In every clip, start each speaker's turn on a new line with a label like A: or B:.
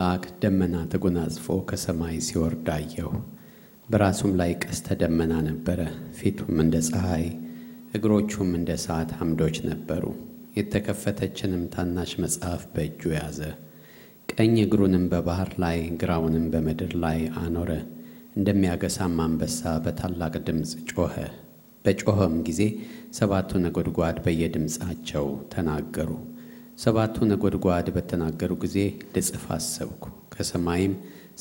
A: መልአክ ደመና ተጎናጽፎ ከሰማይ ሲወርድ አየሁ። በራሱም ላይ ቀስተ ደመና ነበረ። ፊቱም እንደ ፀሐይ፣ እግሮቹም እንደ እሳት አምዶች ነበሩ። የተከፈተችንም ታናሽ መጽሐፍ በእጁ ያዘ። ቀኝ እግሩንም በባህር ላይ ግራውንም በምድር ላይ አኖረ። እንደሚያገሳም አንበሳ በታላቅ ድምፅ ጮኸ። በጮኸም ጊዜ 7ቱ ነጎድጓድ በየድምፃቸው ተናገሩ። 7ቱ ነጎድጓድ በተናገሩ ጊዜ ልጽፍ አሰብኩ። ከሰማይም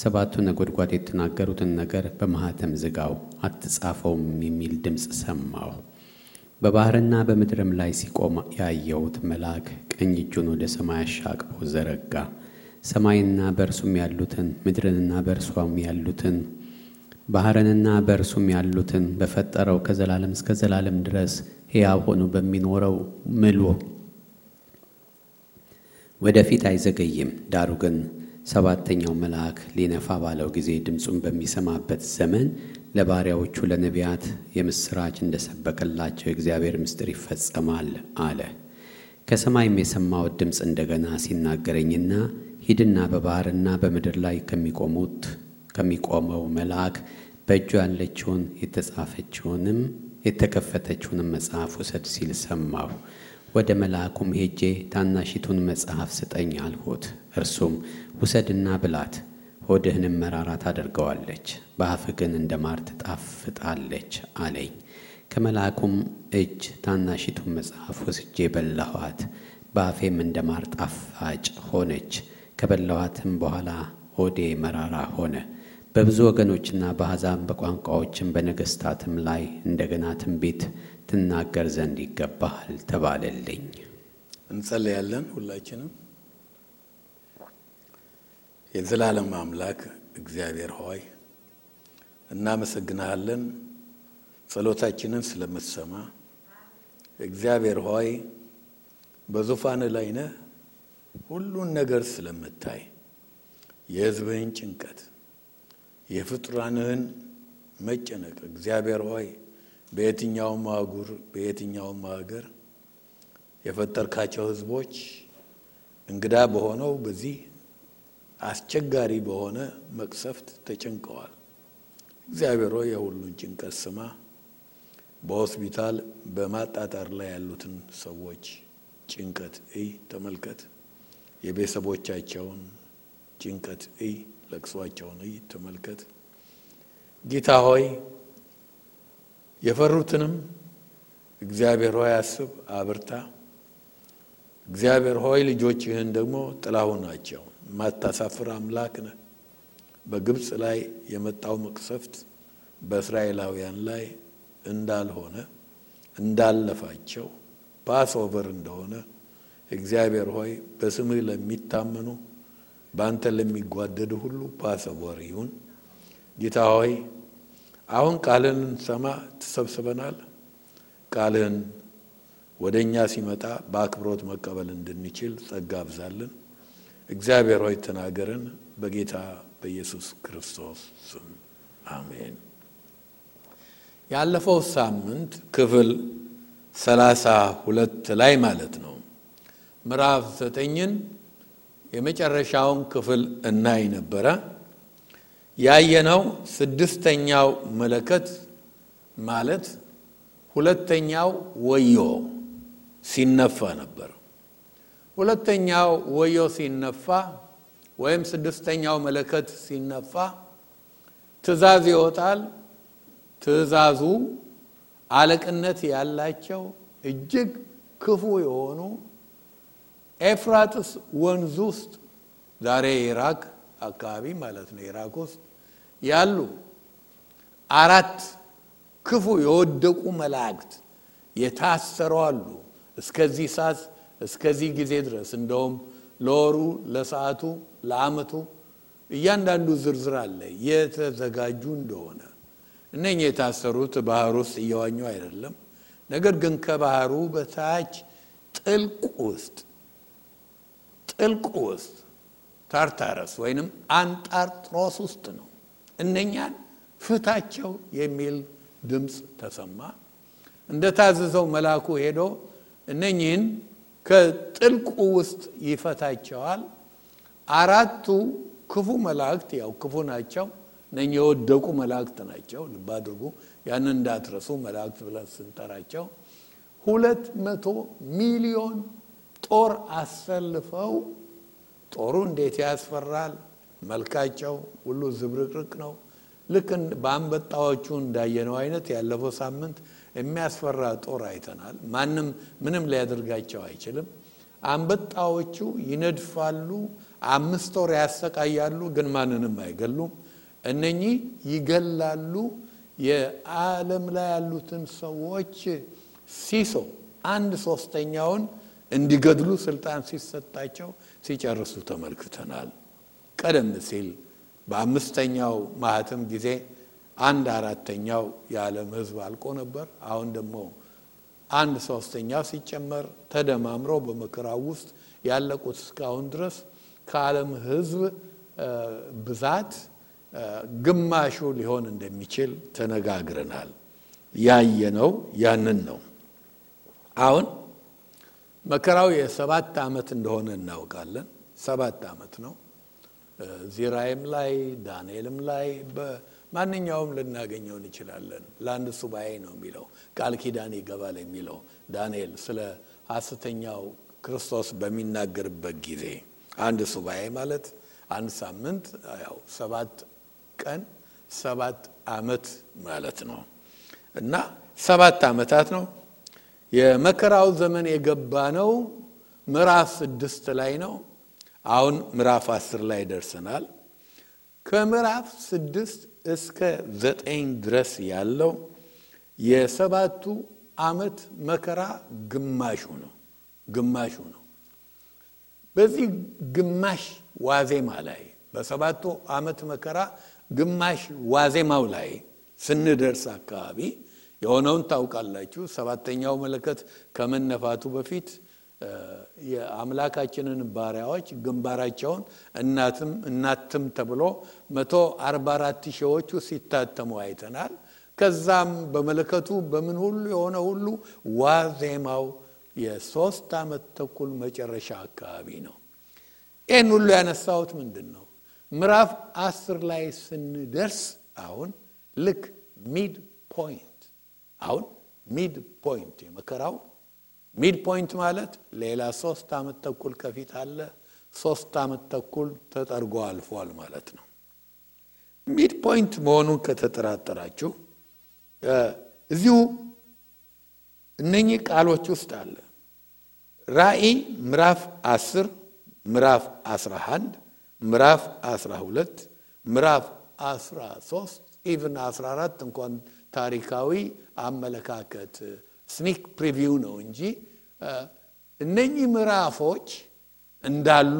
A: 7ቱ ነጎድጓድ የተናገሩትን ነገር በማኅተም ዝጋው፣ አትጻፈውም የሚል ድምፅ ሰማሁ። በባህርና በምድርም ላይ ሲቆም ያየሁት መልአክ ቀኝ እጁን ወደ ሰማይ አሻቅቦ ዘረጋ። ሰማይንና በእርሱም ያሉትን፣ ምድርንና በእርሷም ያሉትን፣ ባህርንና በእርሱም ያሉትን በፈጠረው ከዘላለም እስከ ዘላለም ድረስ ሕያው ሆኖ በሚኖረው ምሎ ወደፊት አይዘገይም። ዳሩ ግን 7ተኛው መልአክ ሊነፋ ባለው ጊዜ ድምፁን በሚሰማበት ዘመን ለባሪያዎቹ ለነቢያት የምሥራች እንደሰበከላቸው የእግዚአብሔር ምስጢር ይፈጸማል አለ። ከሰማይም የሰማሁት ድምፅ እንደገና ሲናገረኝና ሂድና በባህርና በምድር ላይ ከሚቆመው መልአክ በእጁ ያለችውን የተጻፈችውንም የተከፈተችውንም መጽሐፍ ውሰድ ሲል ሰማሁ። ወደ መልአኩም ሄጄ ታናሺቱን መጽሐፍ ስጠኝ አልሁት። እርሱም ውሰድና ብላት፣ ሆድህንም መራራ ታደርገዋለች፣ በአፍህ ግን እንደ ማር ትጣፍጣለች አለኝ። ከመልአኩም እጅ ታናሺቱን መጽሐፍ ወስጄ በላኋት፣ በአፌም እንደ ማር ጣፋጭ ሆነች። ከበላኋትም በኋላ ሆዴ መራራ ሆነ። በብዙ ወገኖችና በአሕዛብ በቋንቋዎችም በነገሥታትም ላይ እንደገና ትንቢት ትናገር ዘንድ ይገባሃል ተባለልኝ።
B: እንጸልያለን። ሁላችንም የዘላለም አምላክ እግዚአብሔር ሆይ እናመሰግናለን፣ ጸሎታችንን ስለምትሰማ። እግዚአብሔር ሆይ በዙፋን ላይ ነህ፣ ሁሉን ነገር ስለምታይ የሕዝብህን ጭንቀት፣ የፍጡራንህን መጨነቅ እግዚአብሔር ሆይ በየትኛውም አህጉር በየትኛውም ሀገር የፈጠርካቸው ሕዝቦች እንግዳ በሆነው በዚህ አስቸጋሪ በሆነ መቅሰፍት ተጨንቀዋል። እግዚአብሔር ሆይ የሁሉን ጭንቀት ስማ። በሆስፒታል በማጣጣር ላይ ያሉትን ሰዎች ጭንቀት ተመልከት። የቤተሰቦቻቸውን ጭንቀት ለቅሷቸውን ተመልከት። ጌታ ሆይ የፈሩትንም እግዚአብሔር ሆይ አስብ፣ አብርታ። እግዚአብሔር ሆይ ልጆችህን ደግሞ ጥላው ናቸው። ማታሳፍር አምላክ ነህ። በግብፅ ላይ የመጣው መቅሰፍት በእስራኤላውያን ላይ እንዳልሆነ እንዳለፋቸው ፓስኦቨር እንደሆነ እግዚአብሔር ሆይ በስምህ ለሚታመኑ በአንተ ለሚጓደዱ ሁሉ ፓስኦቨር ይሁን። ጌታ ሆይ አሁን ቃልህን ሰማ ተሰብስበናል። ቃልህን ወደኛ ሲመጣ በአክብሮት መቀበል እንድንችል ጸጋ አብዛልን። እግዚአብሔር ሆይ ተናገረን፣ በጌታ በኢየሱስ ክርስቶስ ስም አሜን። ያለፈው ሳምንት ክፍል 32 ላይ ማለት ነው ምዕራፍ 9ን የመጨረሻውን ክፍል እናይ ነበረ። ያየነው 6ኛው መለከት ማለት ሁለተኛው ወዮ ሲነፋ ነበር። ሁለተኛው ወዮ ሲነፋ ወይም 6ኛው መለከት ሲነፋ ትእዛዝ ይወጣል። ትእዛዙ አለቅነት ያላቸው እጅግ ክፉ የሆኑ ኤፍራጥስ ወንዝ ውስጥ ዛሬ ኢራቅ አካባቢ ማለት ነው ኢራቅ ውስጥ ያሉ 4 ክፉ የወደቁ መላእክት የታሰሩ አሉ። እስከዚህ ሰዓት እስከዚህ ጊዜ ድረስ እንደውም ለወሩ ለሰዓቱ ለዓመቱ እያንዳንዱ ዝርዝር አለ የተዘጋጁ እንደሆነ። እነኚህ የታሰሩት ባህር ውስጥ እየዋኙ አይደለም፣ ነገር ግን ከባህሩ በታች ጥልቅ ውስጥ ታርታረስ ወይንም አንጣርጥሮስ ውስጥ ነው። እነኛን ፍታቸው የሚል ድምፅ ተሰማ። እንደታዘዘው መልአኩ ሄዶ እነኚህን ከጥልቁ ውስጥ ይፈታቸዋል። 4 ክፉ መላእክት ያው ክፉ ናቸው፣ እነኚህ የወደቁ መላእክት ናቸው። ልብ አድርጉ፣ ያንን እንዳትረሱ። መላእክት ብለን ስንጠራቸው 200 ሚሊዮን ጦር አሰልፈው፣ ጦሩ እንዴት ያስፈራል! መልካቸው ሁሉ ዝብርቅርቅ ነው። ልክ በአንበጣዎቹ እንዳየነው አይነት ያለፈው ሳምንት የሚያስፈራ ጦር አይተናል። ማንም ምንም ሊያደርጋቸው አይችልም። አንበጣዎቹ ይነድፋሉ፣ 5 ወር ያሰቃያሉ፣ ግን ማንንም አይገሉም። እነኚህ ይገላሉ። የዓለም ላይ ያሉትን ሰዎች ሲሶ 1/3ኛውን እንዲገድሉ ስልጣን ሲሰጣቸው ሲጨርሱ ተመልክተናል። ቀደም ሲል በ5ኛው ማህተም ጊዜ 1/4ኛው የዓለም ሕዝብ አልቆ ነበር። አሁን ደግሞ 1/3ኛው ሲጨመር ተደማምሮ በመከራው ውስጥ ያለቁት እስካሁን ድረስ ከዓለም ሕዝብ ብዛት ግማሹ ሊሆን እንደሚችል ተነጋግረናል። ያየነው ያንን ነው። አሁን መከራው የ7 ዓመት እንደሆነ እናውቃለን። 7 ዓመት ነው። ዚራይም ላይ ዳንኤልም ላይ በማንኛውም ልናገኘው እንችላለን። ለአንድ ሱባኤ ነው የሚለው፣ ቃል ኪዳን ይገባል የሚለው ዳንኤል ስለ ሐሰተኛው ክርስቶስ በሚናገርበት ጊዜ አንድ ሱባኤ ማለት አንድ ሳምንት፣ ያው 7 ቀን 7 ዓመት ማለት ነው እና 7 ዓመታት ነው። የመከራው ዘመን የገባ ነው ምዕራፍ 6 ላይ ነው። አሁን ምዕራፍ 10 ላይ ደርሰናል። ከምዕራፍ 6 እስከ 9 ድረስ ያለው የ7ቱ ዓመት መከራ ግማሹ ነው። በዚህ ግማሽ ዋዜማ ላይ በ7ቱ ዓመት መከራ ግማሽ ዋዜማው ላይ ስንደርስ አካባቢ የሆነውን ታውቃላችሁ። 7ኛው መለከት ከመነፋቱ በፊት የአምላካችንን ባሪያዎች ግንባራቸውን እናትም ተብሎ 144 ሺዎቹ ሲታተሙ አይተናል። ከዛም በመለከቱ በምን ሁሉ የሆነ ሁሉ ዋዜማው የ3 ዓመት ተኩል መጨረሻ አካባቢ ነው። ይህን ሁሉ ያነሳሁት ምንድን ነው? ምዕራፍ 10 ላይ ስንደርስ አሁን ልክ ሚድ ፖይንት የመከራው ሚድ ፖይንት ማለት ሌላ 3 ዓመት ተኩል ከፊት አለ። 3 ዓመት ተኩል ተጠርጎ አልፏል ማለት ነው። ሚድ ፖይንት መሆኑን ከተጠራጠራችሁ እዚሁ እነኚህ ቃሎች ውስጥ አለ። ራእይ ምዕራፍ 10 ምዕራፍ 11 ምዕራፍ 12 ምዕራፍ 13 ኢቭን 14 እንኳን ታሪካዊ አመለካከት ስኒክ ፕሪቪው ነው እንጂ እነኚህ ምዕራፎች እንዳሉ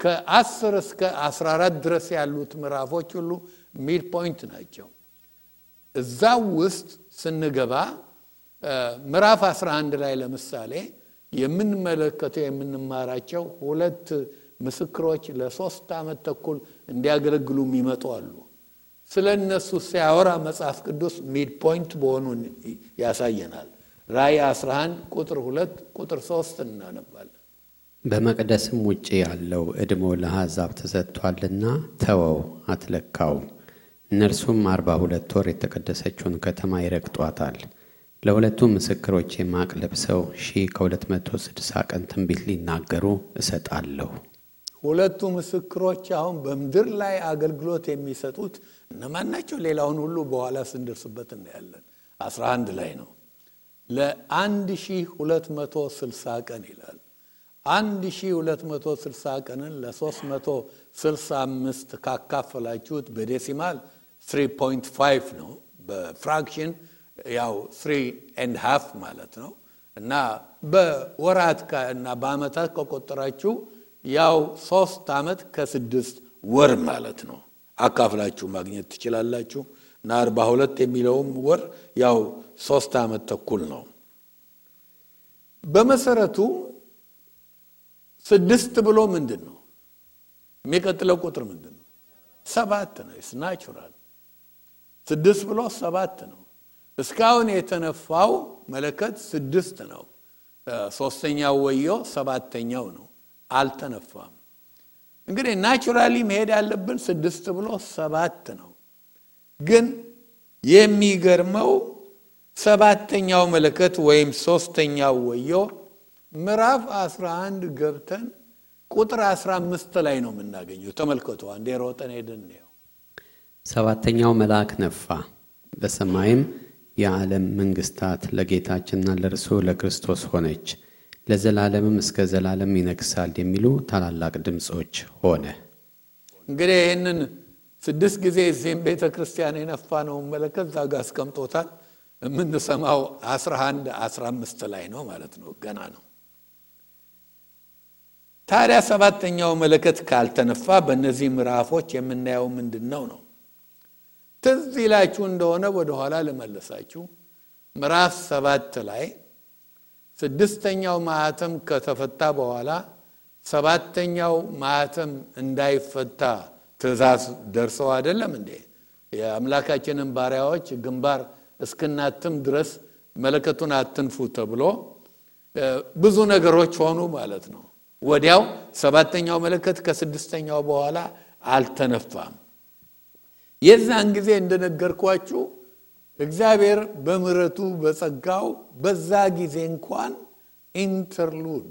B: ከ10 እስከ 14 ድረስ ያሉት ምዕራፎች ሁሉ ሚድ ፖይንት ናቸው። እዛው ውስጥ ስንገባ ምዕራፍ 11 ላይ ለምሳሌ የምንመለከተው የምንማራቸው 2 ምስክሮች ለ3 ዓመት ተኩል እንዲያገለግሉ የሚመጡ አሉ። ስለነሱ ሲያወራ መጽሐፍ ቅዱስ ሚድ ፖይንት በሆኑን ያሳየናል። ራእይ 11 ቁጥር 2 ቁጥር 3 እናነባለን።
A: በመቅደስም ውጪ ያለው ዕድሞ ለአሕዛብ ተሰጥቷልና ተወው፣ አትለካውም። እነርሱም 42 ወር የተቀደሰችውን ከተማ ይረግጧታል። ለሁለቱ ምስክሮች ማቅ ለብሰው 1260 ቀን ትንቢት ሊናገሩ እሰጣለሁ።
B: ሁለቱ ምስክሮች አሁን በምድር ላይ አገልግሎት የሚሰጡት እነማን ናቸው? ሌላውን ሁሉ በኋላ ስንደርስበት እናያለን። 11 ላይ ነው። ለ1260 ቀን ይላል። 1260 ቀንን ለ365 ካካፈላችሁት በዴሲማል 3.5 ነው። በፍራክሽን ያው 3.5 ማለት ነው። እና በወራት እና በአመታት ከቆጠራችሁ ያው 3 ዓመት ከ6 ወር ማለት ነው። አካፍላችሁ ማግኘት ትችላላችሁ። እና 42 የሚለውም ወር ያው 3 ዓመት ተኩል ነው። በመሰረቱ 6 ብሎ ምንድነው? የሚቀጥለው ቁጥር ምንድነው? 7 ነው። ኢትስ ናቹራል። 6 ብሎ 7 ነው። እስካሁን የተነፋው መለከት 6 ነው። 3ኛው ወዮ 7ኛው ነው። አልተነፋም። እንግዲህ ናቹራሊ መሄድ ያለብን 6 ብሎ 7 ነው። ግን የሚገርመው 7ኛው መለከት ወይም 3ኛው ወዮ ምዕራፍ 11 ገብተን ቁጥር 15 ላይ ነው የምናገኘው። ተመልከቱ፣ አንዴ ሮጠን ሄደን ነው።
A: 7ኛው መልአክ ነፋ፣ በሰማይም የዓለም መንግስታት ለጌታችንና ለእርሱ ለክርስቶስ ሆነች፣ ለዘላለምም እስከ ዘላለም ይነግሣል የሚሉ ታላላቅ ድምጾች ሆነ። እንግዲህ
B: ይሄንን 6 ጊዜ እዚህም ቤተክርስቲያን የነፋ ነው መለከት ዛጋ አስቀምጦታል። የምንሰማው 11 15 ላይ ነው ማለት ነው። ገና ነው። ታዲያ 7ኛው መለከት ካልተነፋ በእነዚህ ምዕራፎች የምናየው ምንድነው ነው? ትዝ ይላችሁ እንደሆነ ወደ ኋላ ልመለሳችሁ። ምዕራፍ 7 ላይ 6ኛው ማህተም ከተፈታ በኋላ 7ኛው ማህተም እንዳይፈታ ትእዛዝ ደርሰው አይደለም እንዴ? የአምላካችንን ባሪያዎች ግንባር እስክናትም ድረስ መለከቱን አትንፉ ተብሎ ብዙ ነገሮች ሆኑ ማለት ነው። ወዲያው 7ኛው መለከት ከ6ኛው በኋላ አልተነፋም። የዛን ጊዜ እንደነገርኳችሁ እግዚአብሔር በምህረቱ በጸጋው በዛ ጊዜ እንኳን ኢንተርሉድ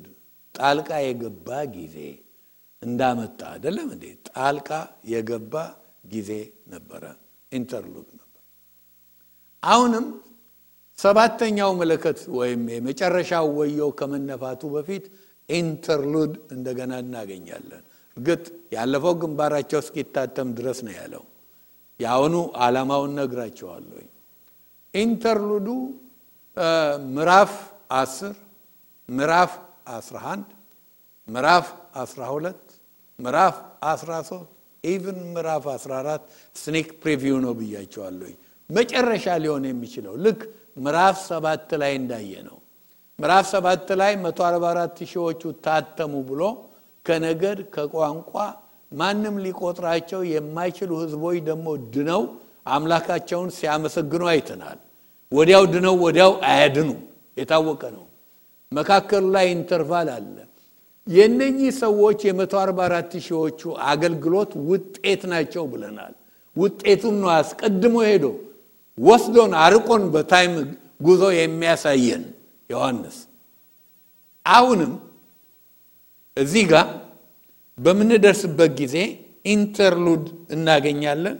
B: ጣልቃ የገባ ጊዜ እንዳመጣ አይደለም እንዴ? ጣልቃ የገባ ጊዜ ነበረ፣ ኢንተርሉድ ነበር። አሁንም 7ኛው መለከት ወይም የመጨረሻው ወዮ ከመነፋቱ በፊት ኢንተርሉድ እንደገና እናገኛለን። እርግጥ ያለፈው ግንባራቸው እስኪታተም ድረስ ነው ያለው። ያውኑ ዓላማውን ነግራቸዋለሁ። ኢንተርሉዱ ምዕራፍ 10 ምዕራፍ 11 ምዕራፍ 12 ምዕራፍ 13 ኢቭን ምዕራፍ 14 ስኒክ ፕሪቪው ነው ብያቸዋለሁ። መጨረሻ ሊሆን የሚችለው ልክ ምዕራፍ 7 ላይ እንዳየነው ምዕራፍ 7 ላይ 144 ሺዎቹ ታተሙ ብሎ ከነገድ ከቋንቋ ማንም ሊቆጥራቸው የማይችሉ ህዝቦች ደግሞ ድነው አምላካቸውን ሲያመሰግኑ አይተናል። ወዲያው ድነው ወዲያው አያድኑ የታወቀ ነው። መካከሉ ላይ ኢንተርቫል አለ። የነኚህ ሰዎች የ144 ሺዎቹ አገልግሎት ውጤት ናቸው ብለናል። ውጤቱም ነው አስቀድሞ ሄዶ ወስዶን አርቆን በታይም ጉዞ የሚያሳየን ዮሐንስ። አሁንም እዚህ ጋር በምንደርስበት ጊዜ ኢንተርሉድ እናገኛለን።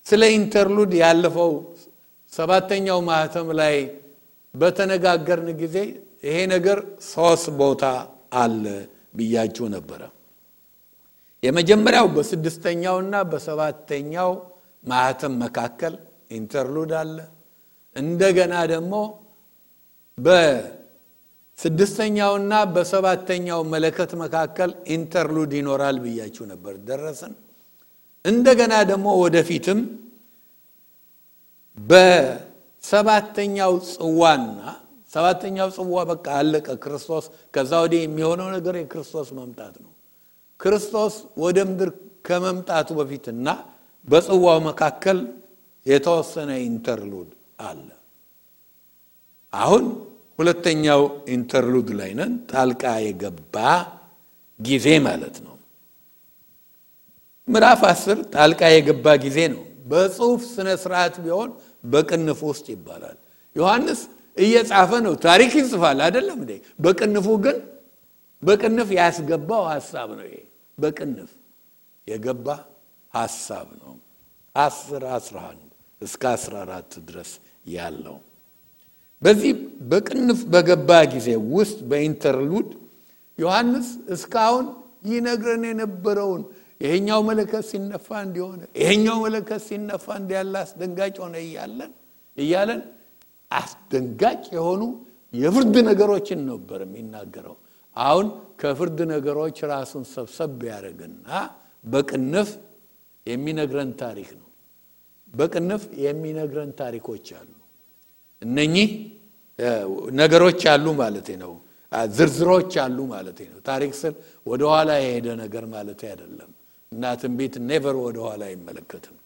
B: ስለ ኢንተርሉድ ያለፈው 7ኛው ማህተም ላይ በተነጋገርን ጊዜ ይሄ ነገር 3 ቦታ አለ ብያችሁ ነበረ። የመጀመሪያው በ6ኛውና በ7ኛው ማህተም መካከል ኢንተርሉድ አለ። እንደገና ደግሞ በ6ኛውና በ7ኛው መለከት መካከል ኢንተርሉድ ይኖራል ብያችሁ ነበር። ደረሰን። እንደገና ደግሞ ወደፊትም በ7ኛው ጽዋና 7ኛው ጽዋ በቃ አለቀ። ክርስቶስ ከዛ ወዲህ የሚሆነው ነገር የክርስቶስ መምጣት ነው። ክርስቶስ ወደ ምድር ከመምጣቱ በፊትና በጽዋው መካከል የተወሰነ ኢንተርሉድ አለ። አሁን ሁለተኛው ኢንተርሉድ ላይ ነን። ጣልቃ የገባ ጊዜ ማለት ነው። ምዕራፍ 10 ጣልቃ የገባ ጊዜ ነው። በጽሁፍ ስነ ስርዓት ቢሆን በቅንፍ ውስጥ ይባላል። ዮሐንስ እየጻፈ ነው፣ ታሪክ ይጽፋል አይደለም እንዴ? በቅንፉ ግን በቅንፍ ያስገባው ሐሳብ ነው። ይሄ በቅንፍ የገባ ሐሳብ ነው። 10 11 እስከ 14 ድረስ ያለው በዚህ በቅንፍ በገባ ጊዜ ውስጥ በኢንተርሉድ ዮሐንስ እስካሁን ይነግረን የነበረውን ይሄኛው መለከት ሲነፋ እንዲሆነ ይሄኛው መለከት ሲነፋ እንዲያለ አስደንጋጭ ሆነ እያለን አስደንጋጭ የሆኑ የፍርድ ነገሮችን ነበር የሚናገረው። አሁን ከፍርድ ነገሮች ራሱን ሰብሰብ ያደርግና በቅንፍ የሚነግረን ታሪክ ነው። በቅንፍ የሚነግረን ታሪኮች አሉ። እነኚህ ነገሮች አሉ ማለት ነው። ዝርዝሮች አሉ ማለት ነው። ታሪክ ስል ወደ ኋላ የሄደ ነገር ማለት አይደለም። እና ትንቢት ኔቨር ወደ ኋላ አይመለከትም።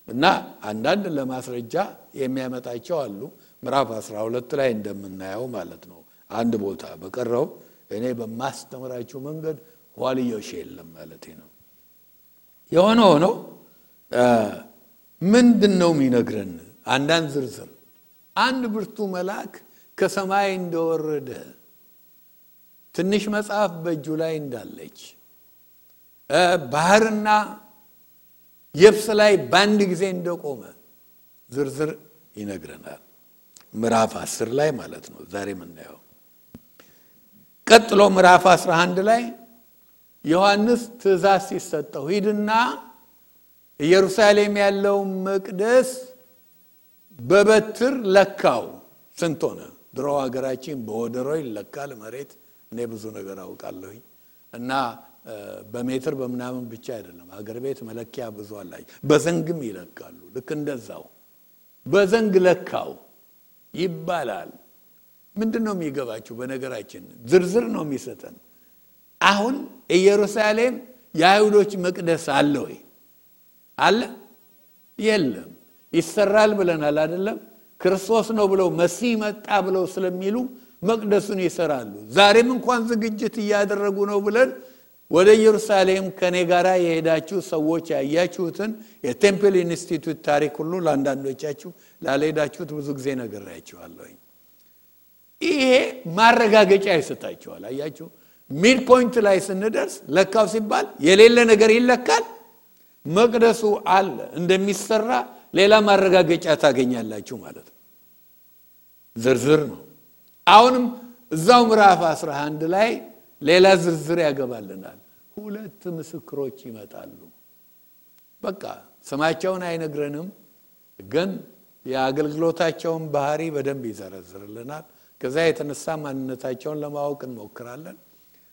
B: እና አንዳንድ ለማስረጃ የሚያመጣቸው አሉ። ምዕራፍ 12 ላይ እንደምናየው ማለት ነው። አንድ ቦታ በቀረው እኔ በማስተምራችሁ መንገድ ዋልዮሽ የለም ማለት ነው። የሆነ ሆኖ ምንድነው የሚነግረን? አንዳንድ ዝርዝር አንድ ብርቱ መልአክ ከሰማይ እንደወረደ ትንሽ መጽሐፍ በእጁ ላይ እንዳለች ባህርና የብስ ላይ በአንድ ጊዜ እንደቆመ ዝርዝር ይነግረናል። ምዕራፍ 10 ላይ ማለት ነው ዛሬ የምናየው። ቀጥሎ ምዕራፍ 11 ላይ ዮሐንስ ትእዛዝ ሲሰጠው ሂድና ኢየሩሳሌም ያለው መቅደስ በበትር ለካው። ስንት ሆነ? ድሮ ሀገራችን በወደሮ ይለካል መሬት። እኔ ብዙ ነገር አውቃለሁ እና በሜትር በመናምን ብቻ አይደለም፣ ሀገር ቤት መለኪያ ብዙ አላቸው። በዘንግም ይለካሉ። ልክ እንደዛው በዘንግ ለካው ይባላል። ምንድነው የሚገባችሁ? በነገራችን ዝርዝር ነው የሚሰጠን። አሁን ኢየሩሳሌም የአይሁዶች መቅደስ አለ ወይ? አለ? የለም። ይሰራል ብለናል አይደለም? ክርስቶስ ነው ብለው መሲህ መጣ ብለው ስለሚሉ መቅደሱን ይሰራሉ። ዛሬም እንኳን ዝግጅት እያደረጉ ነው ብለን ወደ ኢየሩሳሌም ከኔ ጋራ የሄዳችሁ ሰዎች ያያችሁትን የቴምፕል ኢንስቲትዩት ታሪክ ሁሉ ለአንዳንዶቻችሁ ላልሄዳችሁት ብዙ ጊዜ ነግሬያችኋለሁ። ይሄ ማረጋገጫ ይሰጣችኋል። አያችሁ፣ ሚድ ፖይንት ላይ ስንደርስ ለካው ሲባል የሌለ ነገር ይለካል። መቅደሱ አለ እንደሚሰራ ሌላ ማረጋገጫ ታገኛላችሁ ማለት ነው። ዝርዝር ነው። አሁንም እዛው ምዕራፍ 11 ላይ ሌላ ዝርዝር ያገባልናል። 2 ምስክሮች ይመጣሉ። በቃ ስማቸውን አይነግረንም፣ ግን የአገልግሎታቸውን ባህሪ በደንብ ይዘረዝርልናል። ከዛ የተነሳ ማንነታቸውን ለማወቅ እንሞክራለን።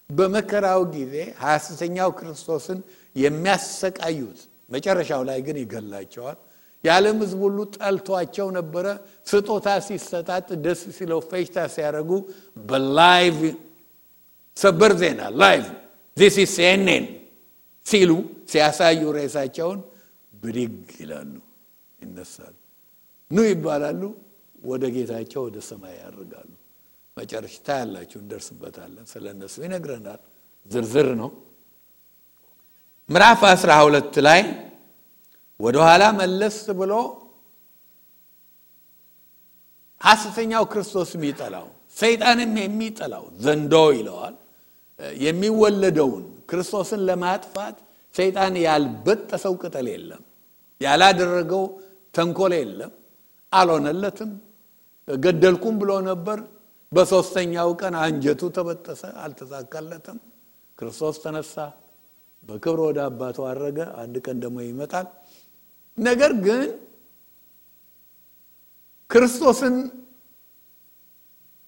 B: በመከራው ጊዜ ሐሰተኛው ክርስቶስን የሚያሰቃዩት መጨረሻው ላይ ግን ይገላቸዋል። የዓለም ሕዝብ ሁሉ ጠልቷቸው ነበረ። ስጦታ ሲሰጣጥ ደስ ሲለው ፈሽታ ሲያረጉ በላይቭ ሰበር ዜና ላይቭ this is CNN ሲሉ ሲያሳዩ ሬሳቸውን ብድግ ይላሉ፣ ይነሳሉ፣ ኑ ይባላሉ፣ ወደ ጌታቸው ወደ ሰማይ ያርጋሉ። መጨረሻ ታያላችሁ፣ እንደርስበታለን። ስለነሱ ይነግረናል። ዝርዝር ነው። ምዕራፍ 12 ላይ ወደ ኋላ መለስ ብሎ ሐሰተኛው ክርስቶስ የሚጠላው ሰይጣንም የሚጠላው ዘንዶ ይለዋል። የሚወለደውን ክርስቶስን ለማጥፋት ሰይጣን ያልበጠሰው ቅጠል የለም፣ ያላደረገው ተንኮል የለም። አልሆነለትም። ገደልኩም ብሎ ነበር። በሶስተኛው ቀን አንጀቱ ተበጠሰ፣ አልተሳካለትም። ክርስቶስ ተነሳ፣ በክብር ወደ አባቱ አረገ። አንድ ቀን ደግሞ ይመጣል። ነገር ግን ክርስቶስን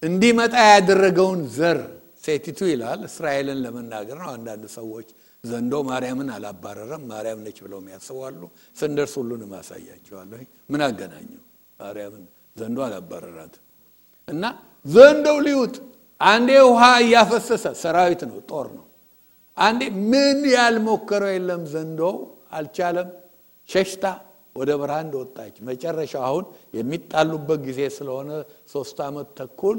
B: እንዲመጣ ያደረገውን ዘር ሴቲቱ ይላል። እስራኤልን ለመናገር ነው። አንዳንድ ሰዎች ዘንዶ ማርያምን አላባረረም፣ ማርያም ነች ብለው የሚያስባሉ። ስንደርስ ሁሉንም አሳያቸዋለሁ። ምን አገናኘው? ማርያምን ዘንዶ አላባረራት እና ዘንዶው ሊውጥ አንዴ ውሃ እያፈሰሰ ሰራዊት ነው፣ ጦር ነው። አንዴ ምን ያልሞከረው የለም። ዘንዶው አልቻለም። ሸሽታ ወደ በረሃ እንደወጣች መጨረሻው አሁን የሚጣሉበት ጊዜ ስለሆነ 3 ዓመት ተኩል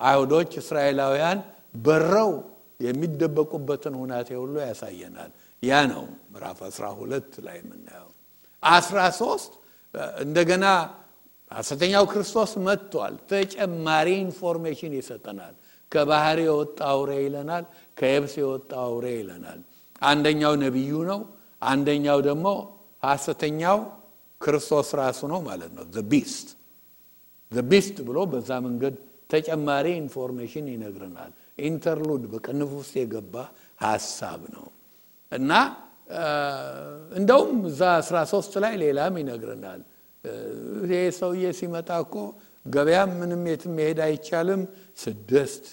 B: አይሁዶች እስራኤላውያን በረው የሚደበቁበትን ሁኔታ ሁሉ ያሳየናል። ያ ነው ምዕራፍ 12 ላይ የምናየው። 13 እንደገና ሐሰተኛው ክርስቶስ መጥቷል። ተጨማሪ ኢንፎርሜሽን ይሰጠናል። ከባህር የወጣ አውሬ ይለናል፣ ከየብስ የወጣ አውሬ ይለናል። አንደኛው ነብዩ ነው፣ አንደኛው ደግሞ ሐሰተኛው ክርስቶስ ራሱ ነው ማለት ነው። the beast ብሎ በዛ መንገድ ተጨማሪ ኢንፎርሜሽን ይነግረናል። ኢንተርሉድ በቅንፍ ውስጥ የገባ ሐሳብ ነው እና እንደውም እዛ 13 ላይ ሌላም ይነግረናል። ይሄ ሰውዬ ሲመጣ እኮ ገበያ ምንም የትም መሄድ አይቻልም፣ 6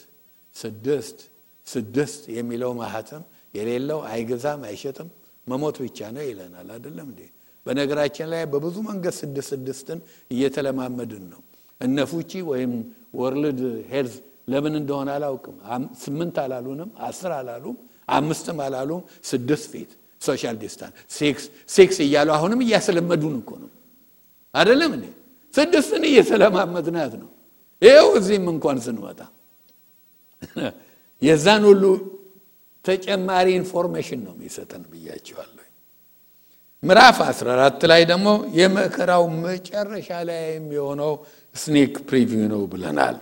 B: የሚለው ማህተም የሌለው አይገዛም አይሸጥም፣ መሞት ብቻ ነው ይለናል። አይደለም እንዴ? በነገራችን ላይ በብዙ መንገድ 6 እየተለማመድን ነው። እነፉቺ ወይም ወርልድ ሄልዝ ለምን እንደሆነ አላውቅም 8 አላሉንም፣ 10 አላሉም፣ 5 አላሉም፣ 6 ፊት ሶሻል ዲስታንስ 6 እያሉ አሁንም እያስለመዱን እኮ ነው። አይደለም እንዴ? 6 እየተለማመድናት ነው። ይሄው እዚህም እንኳን ስንመጣ የዛን ሁሉ ተጨማሪ ኢንፎርሜሽን ነው የሚሰጠን ብያችኋለሁ። ምዕራፍ 14 ላይ ደግሞ የመከራው መጨረሻ ላይ የሚሆነው ስኔክ ፕሪቪው ነው ብለናል።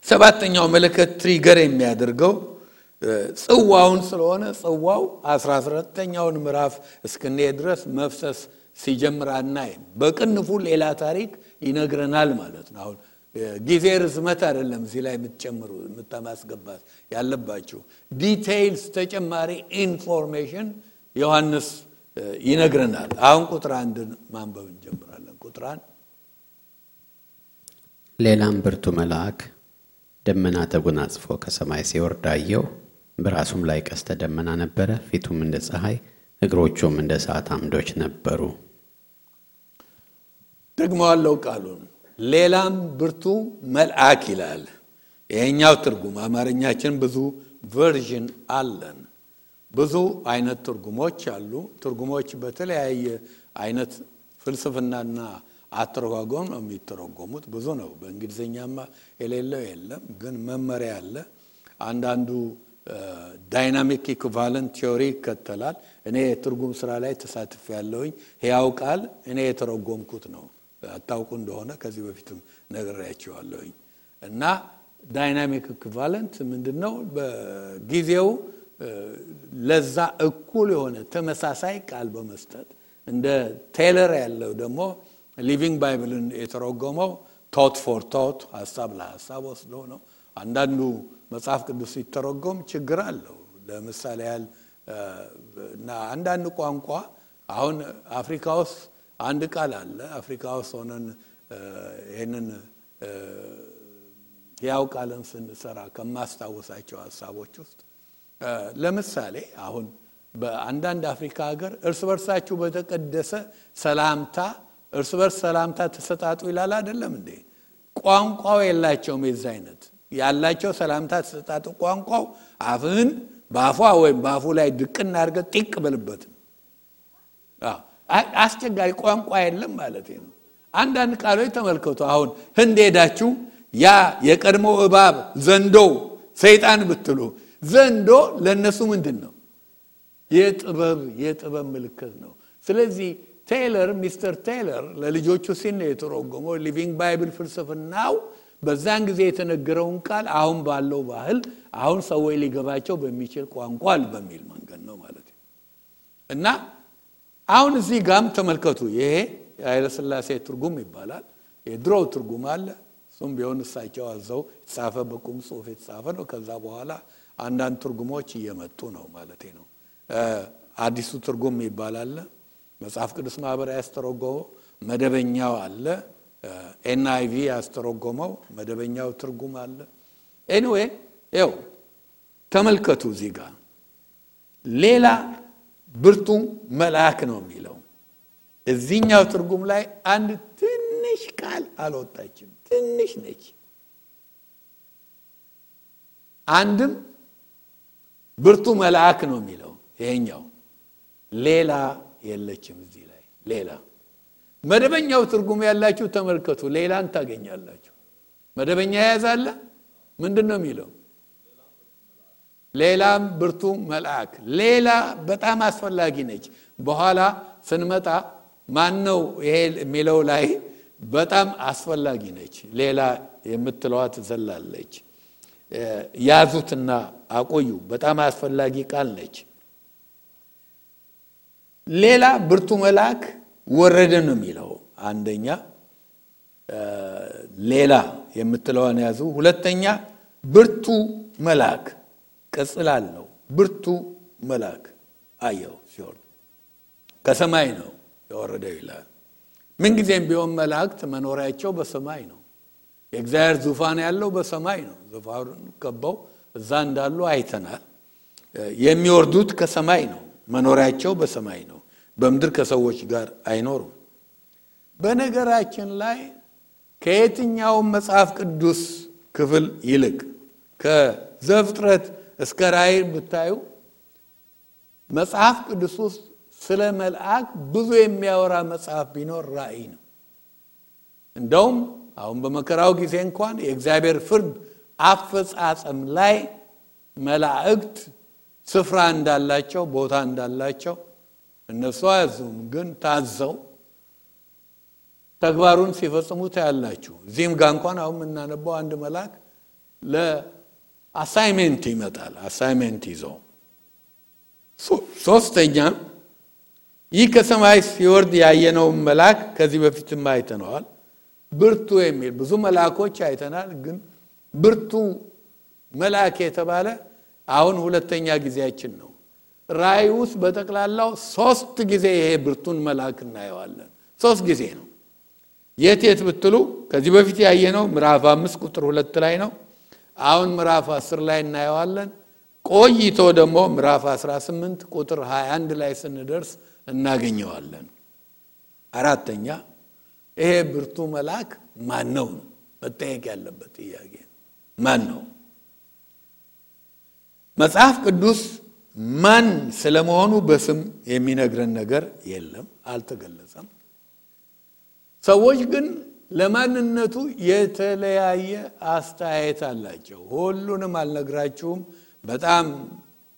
B: ሰባተኛው መለከት ትሪገር የሚያደርገው ጽዋውን ስለሆነ ጽዋው 14ኛውን ምዕራፍ እስከነዚህ ድረስ መፍሰስ ሲጀምር አናይም። በቅንፉ ሌላ ታሪክ ይነግረናል ማለት ነው። አሁን ጊዜ ርዝመት አይደለም እዚህ ላይ የምትጨምሩ የምታማስገባት ያለባችሁ ዲቴይልስ ተጨማሪ ኢንፎርሜሽን ዮሐንስ ይነግረናል። አሁን ቁጥር 1 ማንበብ እንጀምራለን። ቁጥር 1
A: ሌላም ብርቱ መልአክ ደመና ተጎናጽፎ ከሰማይ ሲወርድ አየሁ። በራሱም ላይ ቀስተ ደመና ነበረ። ፊቱም እንደ ፀሐይ እግሮቹም እንደ እሳት አምዶች ነበሩ።
B: ደግሞ አለው ቃሉን ሌላም ብርቱ መልአክ ይላል። ይሄኛው ትርጉም አማርኛችን ብዙ ቨርዥን አለን። ብዙ አይነት ትርጉሞች አሉ። ትርጉሞች በተለያየ አይነት ፍልስፍናና አተረጓጎም ነው የሚተረጎሙት። ብዙ ነው። በእንግሊዘኛማ የሌለው የለም፣ ግን መመሪያ አለ። አንዳንዱ ዳይናሚክ ኢኩቫለንት ቲዮሪ ይከተላል። እኔ ትርጉም ስራ ላይ ተሳትፌያለሁኝ። ሕያው ቃል እኔ የተረጎምኩት ነው። አታውቁ እንደሆነ ከዚህ በፊትም ነግሬያችኋለሁኝ። እና ዳይናሚክ ኢኩቫለንት ምንድነው? በጊዜው ለዛ እኩል የሆነ ተመሳሳይ ቃል በመስጠት እንደ ቴይለር ያለው ደግሞ ሊቪንግ ባይብልን የተረጎመው ቶት ፎር ቶት ሐሳብ ለሐሳብ ወስዶ ነው። አንዳንዱ መጽሐፍ ቅዱስ ሲተረጎም ችግር አለው። ለምሳሌ ያህል እና አንዳንድ ቋንቋ አሁን አፍሪካ ውስጥ አንድ ቃል አለ። አፍሪካ ውስጥ ሆነን ይሄንን ያው ቃልን ስንሰራ ከማስታወሳቸው ሐሳቦች ውስጥ ለምሳሌ አሁን በአንዳንድ አፍሪካ ሀገር እርስ በርሳችሁ በተቀደሰ ሰላምታ እርስ በርስ ሰላምታ ተሰጣጡ ይላል አይደለም እንዴ? ቋንቋው የላቸውም። የዛ አይነት ያላቸው ሰላምታ ተሰጣጡ ቋንቋው አፍህን ባፏ ወይም ባፉ ላይ ድቅና አድርገህ ጢቅ በልበት። አስቸጋሪ ቋንቋ የለም ማለት ነው። አንዳንድ ቃሎች ተመልከቱ። አሁን ህንድ ሄዳችሁ ያ የቀድሞ እባብ ዘንዶ ሰይጣን ብትሉ ዘንዶ ለነሱ ምንድነው? የጥበብ ምልክት ነው። ስለዚህ ቴይለር ሚስተር ቴይለር ለልጆቹ ሲል የተረጎመው ሊቪንግ ባይብል ፍልስፍናው በዛን ጊዜ የተነገረውን ቃል አሁን ባለው ባህል አሁን ሰዎች ሊገባቸው በሚችል ቋንቋ በሚል መንገድ ነው ማለት ነው። እና አሁን እዚህ ጋም ተመልከቱ። ይሄ ኃይለ ሥላሴ ትርጉም ይባላል። የድሮው ትርጉም አለ። እሱም ቢሆን እሳቸው አዘው የተጻፈ በቁም ጽሑፍ የተጻፈ ነው። ከዛ በኋላ አንዳንድ ትርጉሞች እየመጡ ነው ማለት ነው። አዲሱ ትርጉም ይባላል። መጽሐፍ ቅዱስ ማህበር ያስተረጎመው መደበኛው አለ። ኤንአይቪ ያስተረጎመው መደበኛው ትርጉም አለ። ኤኒዌይ ይኸው ተመልከቱ። እዚህ ጋር ሌላ ብርቱ መልአክ ነው የሚለው። እዚህኛው ትርጉም ላይ አንድ ትንሽ ቃል አልወጣችም። ትንሽ ነች። አንድም ብርቱ መልአክ ነው የሚለው ይሄኛው። ሌላ የለችም እዚህ ላይ ሌላ። መደበኛው ትርጉም ያላችሁ ተመልከቱ። ሌላን ታገኛላችሁ። መደበኛ ያዛለ ምንድነው የሚለው? ሌላም ብርቱ መልአክ። ሌላ በጣም አስፈላጊ ነች። በኋላ ስንመጣ ማን ነው ይሄ የሚለው ላይ በጣም አስፈላጊ ነች። ሌላ የምትለዋ ትዘላለች። ያዙትና አቆዩ። በጣም አስፈላጊ ቃል ነች። ሌላ ብርቱ መልአክ ወረደ ነው የሚለው። አንደኛ ሌላ የምትለዋን ያዙ። ሁለተኛ ብርቱ መልአክ ቅጽል አለው። ብርቱ መልአክ አየው ሲወርድ ከሰማይ ነው የወረደው ይላል። ምን ጊዜም ቢሆን መላእክት መኖሪያቸው በሰማይ ነው። የእግዚአብሔር ዙፋን ያለው በሰማይ ነው። ዙፋኑን ከበው እዛ እንዳሉ አይተናል። የሚወርዱት ከሰማይ ነው። መኖሪያቸው በሰማይ ነው። በምድር ከሰዎች ጋር አይኖሩም። በነገራችን ላይ ከየትኛው መጽሐፍ ቅዱስ ክፍል ይልቅ ከዘፍጥረት እስከ ራእይ ብታዩ መጽሐፍ ቅዱስ ውስጥ ስለ መልአክ ብዙ የሚያወራ መጽሐፍ ቢኖር ራእይ ነው። እንደውም አሁን በመከራው ጊዜ እንኳን የእግዚአብሔር ፍርድ አፈጻጸም ላይ መላእክት ስፍራ እንዳላቸው ቦታ እንዳላቸው እነሱ አያዙም፣ ግን ታዘው ተግባሩን ሲፈጽሙ ታያላችሁ። እዚህም ጋር እንኳን አሁን የምናነበው አንድ መልአክ ለአሳይመንት ይመጣል። አሳይመንት ይዞ ሶስተኛ ይህ ከሰማይ ሲወርድ ያየነው መልአክ ከዚህ በፊትም አይተነዋል። ብርቱ የሚል ብዙ መልአኮች አይተናል፣ ግን ብርቱ መልአክ የተባለ አሁን ሁለተኛ ጊዜያችን ነው። ራእይ ውስጥ በጠቅላላው 3 ጊዜ ይሄ ብርቱን መልአክ እናየዋለን። 3 ጊዜ ነው። የት ብትሉ ከዚህ በፊት ያየነው ምዕራፍ 5 ቁጥር 2 ላይ ነው። አሁን ምዕራፍ 10 ላይ እናየዋለን። ቆይቶ ደግሞ ምዕራፍ 18 ቁጥር 21 ላይ ስንደርስ እናገኘዋለን። አራተኛ ይሄ ብርቱ መልአክ ማን ነው? መጠየቅ ያለበት ጥያቄ ማን ነው? መጽሐፍ ቅዱስ ማን ስለመሆኑ በስም የሚነግረን ነገር የለም፣ አልተገለጸም። ሰዎች ግን ለማንነቱ የተለያየ አስተያየት አላቸው። ሁሉንም አልነግራችሁም። በጣም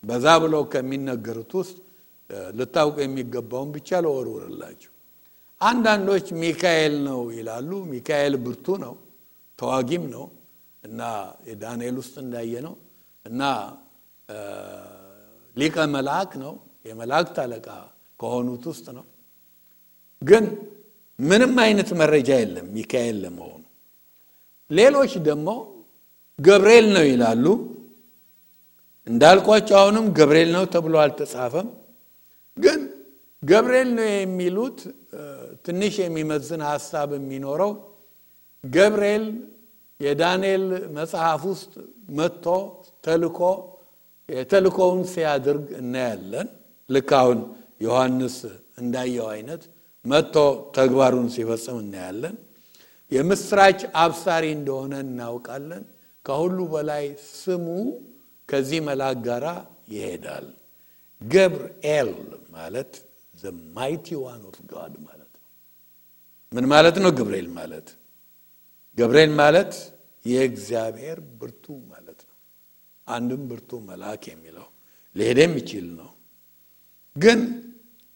B: በዛ ብለው ከሚነገሩት ውስጥ ልታውቁ የሚገባውን ብቻ ለወርወርላችሁ። አንዳንዶች ሚካኤል ነው ይላሉ። ሚካኤል ብርቱ ነው፣ ተዋጊም ነው እና የዳንኤል ውስጥ እንዳየነው እና ሊቀ መልአክ ነው፣ የመላእክት አለቃ ከሆኑት ውስጥ ነው። ግን ምንም አይነት መረጃ የለም ሚካኤል ለመሆኑ። ሌሎች ደግሞ ገብርኤል ነው ይላሉ። እንዳልኳቸው አሁንም ገብርኤል ነው ተብሎ አልተጻፈም። ግን ገብርኤል ነው የሚሉት ትንሽ የሚመዝን ሐሳብ የሚኖረው ገብርኤል የዳንኤል መጽሐፍ ውስጥ መጥቶ ተልኮውን ሲያደርግ እናያለን። ልክ አሁን ዮሐንስ እንዳየው አይነት መጥቶ ተግባሩን ሲፈጽም እናያለን። የምስራች አብሳሪ እንደሆነ እናውቃለን። ከሁሉ በላይ ስሙ ከዚህ መልአክ ጋር ይሄዳል። ገብርኤል ማለት the mighty one of God ማለት ነው። ምን ማለት ነው ገብርኤል ማለት የእግዚአብሔር ብርቱ ማለት ነው። አንድም ብርቱ መልአክ የሚለው ሊሄድም ይችል ነው። ግን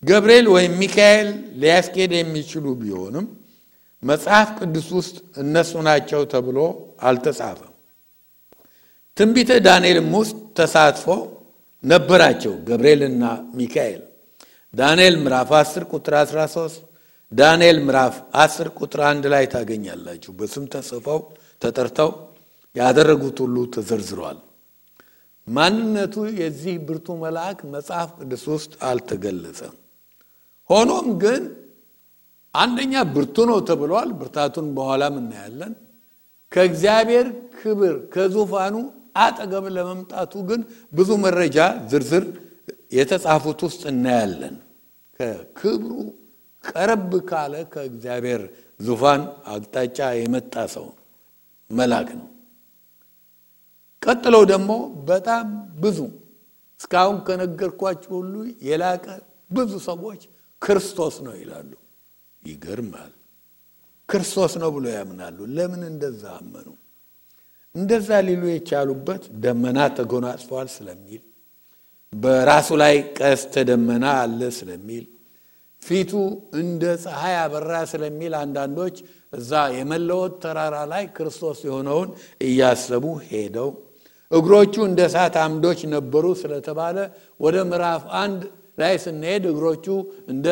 B: ገብርኤል ወይም ሚካኤል ሊያስኬድ የሚችሉ ቢሆንም መጽሐፍ ቅዱስ ውስጥ እነሱ ናቸው ተብሎ አልተጻፈም። ትንቢተ ዳንኤልም ውስጥ ተሳትፎ ነበራቸው ገብርኤልና ሚካኤል። ዳንኤል ምዕራፍ 10 ቁጥር 13፣ ዳንኤል ምዕራፍ 10 ቁጥር 1 ላይ ታገኛላችሁ። በስም ተጽፈው ተጠርተው ያደረጉት ሁሉ ተዘርዝሯል። ማንነቱ የዚህ ብርቱ መልአክ መጽሐፍ ቅዱስ ውስጥ አልተገለጸም። ሆኖም ግን አንደኛ ብርቱ ነው ተብሏል። ብርታቱን በኋላም እናያለን። ከእግዚአብሔር ክብር ከዙፋኑ አጠገብ ለመምጣቱ ግን ብዙ መረጃ ዝርዝር የተጻፉት ውስጥ እናያለን። ከክብሩ ቀረብ ካለ ከእግዚአብሔር ዙፋን አቅጣጫ የመጣ ሰው መልአክ ነው። ቀጥለው ደግሞ በጣም ብዙ እስካሁን ከነገርኳችሁ ሁሉ የላቀ ብዙ ሰዎች ክርስቶስ ነው ይላሉ። ይገርማል። ክርስቶስ ነው ብሎ ያምናሉ። ለምን እንደዛ አመኑ? እንደዛ ሊሉ የቻሉበት ደመና ተጎናጽፏል ስለሚል፣ በራሱ ላይ ቀስተ ደመና አለ ስለሚል፣ ፊቱ እንደ ፀሐይ አበራ ስለሚል አንዳንዶች እዛ የመለወጥ ተራራ ላይ ክርስቶስ የሆነውን እያሰቡ ሄደው እግሮቹ እንደ እሳት አምዶች ነበሩ ስለተባለ ወደ ምዕራፍ 1 ላይ ስንሄድ እግሮቹ እንደ